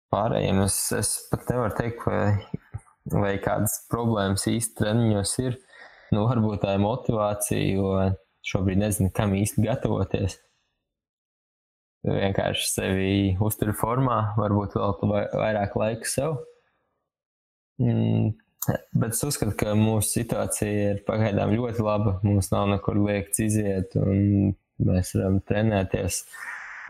Pārējiem es pat nevaru teikt, vai kādas problēmas īsti treniņos ir. Varbūt tā ir motivācija, jo šobrīd nezinu, kam īsti gatavoties. Vienkārši sevi uztur formā, varbūt vēl vairāk laika sev. Bet es uzskatu, ka mūsu situācija ir pagaidām ļoti laba. Mums nav nekur liekts iziet, un mēs varam trenēties.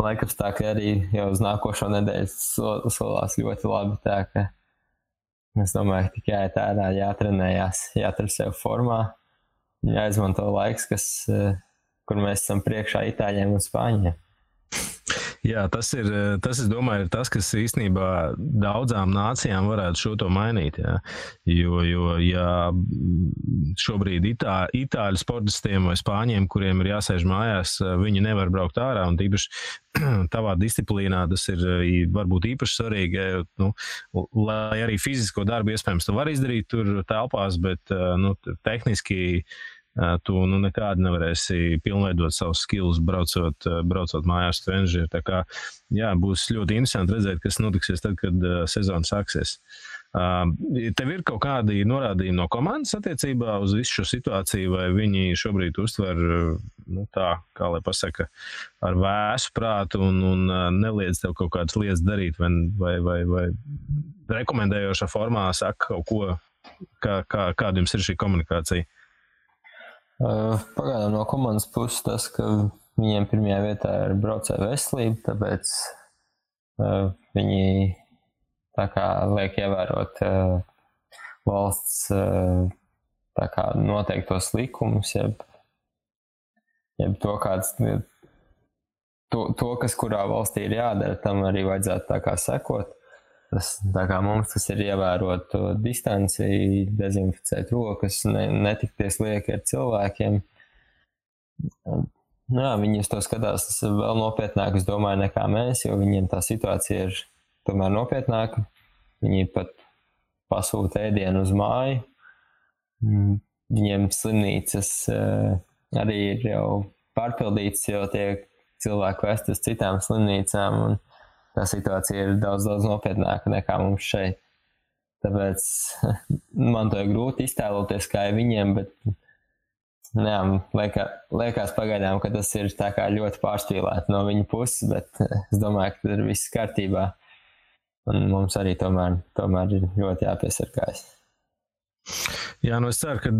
Laikapstākļi arī jau uz nākošo nedēļu solās ļoti labi, tā ka es domāju, ka tikai tādā jātrenējās, jātur sev formā, jāizmanto laiks, kur mēs esam priekšā Itāļiem un Spāņiem. Jā, tas, es domāju, ir tas, kas īstenībā daudzām nācijām varētu šo to mainīt. Jā. Jo ja šobrīd itāļu sportistiem vai spāņiem, kuriem ir jāsēž mājās, viņi nevar braukt ārā, un tīpaši tavā disciplīnā tas ir varbūt īpaši svarīgi, lai arī fizisko darbu iespējams tu vari izdarīt tur telpās, bet tehniski tu nekādi nevarēsi pilnveidot savus skills, braucot mājās trenižeri. Tā kā, jā, būs ļoti interesanti redzēt, kas notiksies tad, kad sezona sāksies. Tev ir kaut kādi norādījumi no komandas attiecībā uz visu šo situāciju, vai viņi šobrīd uztver, tā, kā lai pasaka, ar vēsu prātu un neliedz tev kaut kādas lietas darīt, vai rekomendējošā formā saka kaut ko, kāda jums ir šī komunikācija? Pagaidām no komandas puses tas, ka viņiem pirmajā vietā ir braucēju veselība, tāpēc viņi tā kā liek ievērot valsts tā kā noteiktos likumus, jeb to, kas kurā valstī ir jādara, tam arī vajadzētu tā kā sekot. Tā kā mums tas ir ievērot to distanci, dezinficēt rokas, netikties lieki ar cilvēkiem. Jā, viņi uz to skatās vēl nopietnāk, es domāju, nekā mēs, jo viņiem tā situācija ir tomēr nopietnāka. Viņi pat pasūta ēdienu uz māju. Viņiem slimnīcas arī ir jau pārpildītas, jo tiek cilvēku vest uz citām slimnīcām, un tā situācija ir daudz nopietnāka nekā mums šeit. Tāpēc man to ir grūti iztēloties, kā ir viņiem, bet liekas pagaidām, ka tas ir tā kā ļoti pārspīlēti no viņa puses, bet es domāju, ka tas ir viss kārtībā. Un mums arī tomēr ir ļoti jāpiesargājas. Jā, es ceru, ka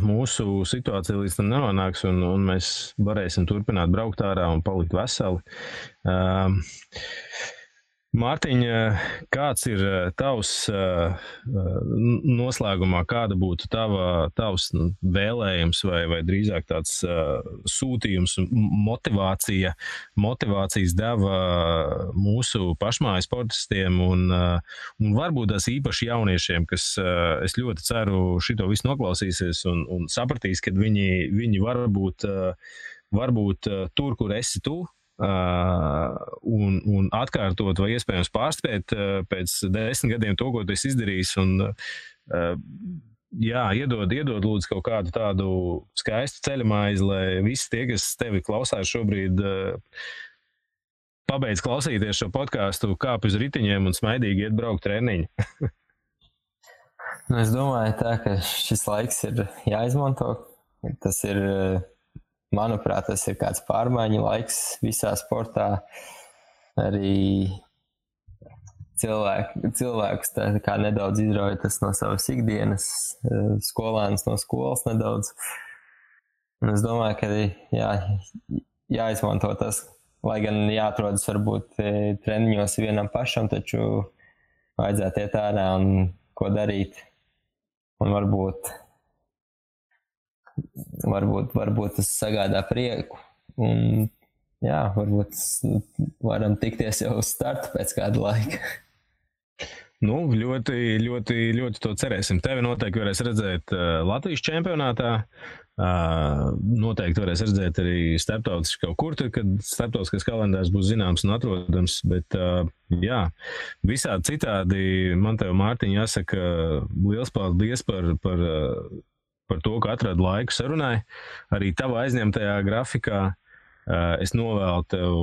mūsu situācija līdz tam nenonāks un mēs varēsim turpināt braukt ārā un palikt veseli. Mārtiņ, kāds ir tavs noslēgumā, kāda būtu tavs vēlējums vai drīzāk tāds sūtījums, motivācijas deva mūsu pašmāju sportistiem un varbūt tās īpaši jauniešiem, kas es ļoti ceru šito visu noklausīsies un sapratīs, ka viņi varbūt tur, kur esi tu, un atkārtot vai iespējams pārspēt pēc 10 gadiem to, ko tu esi izdarījis, un iedod lūdzu kaut kādu tādu skaistu ceļamaizi, lai visi tie, kas tevi klausās šobrīd, pabeidz klausīties šo podcastu, kāp uz ritiņiem un smaidīgi iet braukt treniņu. Es domāju tā, ka šis laiks ir jāizmanto. Tas ir, manuprāt, tas ir kāds pārmaiņu laiks visā sportā. Arī cilvēkus tā kā nedaudz izrauj tas no savas ikdienas, skolēns no skolas nedaudz. Un es domāju, ka jāizmanto tas, lai gan jāatrodas varbūt treniņos vienam pašam, taču vajadzētu iet ārā un ko darīt. Un varbūt tas sagādā prieku. Un, varbūt varam tikties jau uz startu pēc kāda laika. Ļoti, ļoti, ļoti to cerēsim. Tevi noteikti varēs redzēt Latvijas čempionātā. Noteikti varēs redzēt arī starptautiski kaut kur, kad starptautiskais kalendārs būs zināms un atrodams. Bet, visādi citādi man tev, Mārtiņ, jāsaka liels paldies par to, ka atradi laiku sarunai. Arī tavā aizņemtajā grafikā es novēlu tev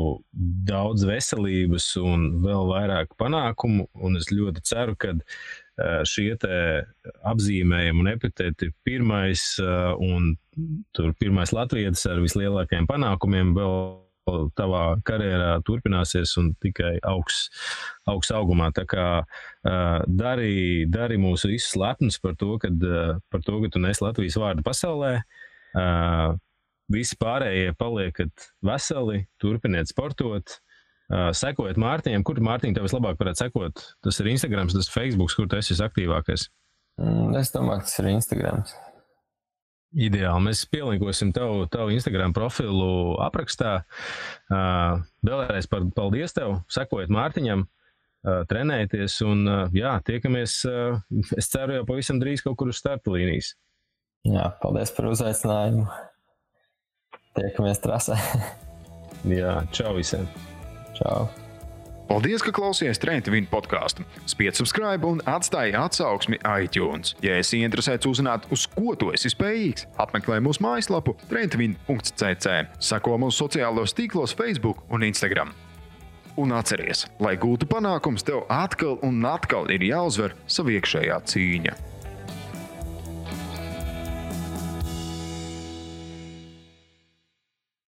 daudz veselības un vēl vairāk panākumu, un es ļoti ceru, ka šie te apzīmējumi un epiteti pirmais un tur pirmais latvietis ar vislielākajiem panākumiem vēl tavā karjerā turpināsies un tikai augs augumā. Tā kā dari mūs visus lepnus par to, ka tu nes Latvijas vārdu pasaulē. Visi pārējie paliekat veseli, turpiniet sportot, sekojiet Mārtiņam. Kur Mārtiņ tev vislabāk varētu sekot? Tas ir Instagrams, tas ir Facebooks, kur tu esi visaktīvākais? Es domāju, ka tas ir Instagrams. Ideāli. Mēs pielinkosim tavu Instagram profilu aprakstā. Vēlreiz paldies tev, sekojiet Mārtiņam, trenējieties un tiekamies, es ceru jau pavisam drīz kaut kur uz starta līnijas. Jā, paldies par uzaicinājumu. Tiekamies trasē. Jā, čau visiem. Čau. Paldies, ka klausījāties Train to Win podcastu. Spied subscribe un atstāj atsauksmi iTunes. Ja esi interesēts uzzināt, uz ko tu esi spējīgs, apmeklē mūsu mājaslapu traintvin.cc. Seko mūsu sociālos tīklos Facebook un Instagram. Un atceries, lai gūtu panākums, tev atkal un atkal ir jāuzvar sava iekšējā cīņa.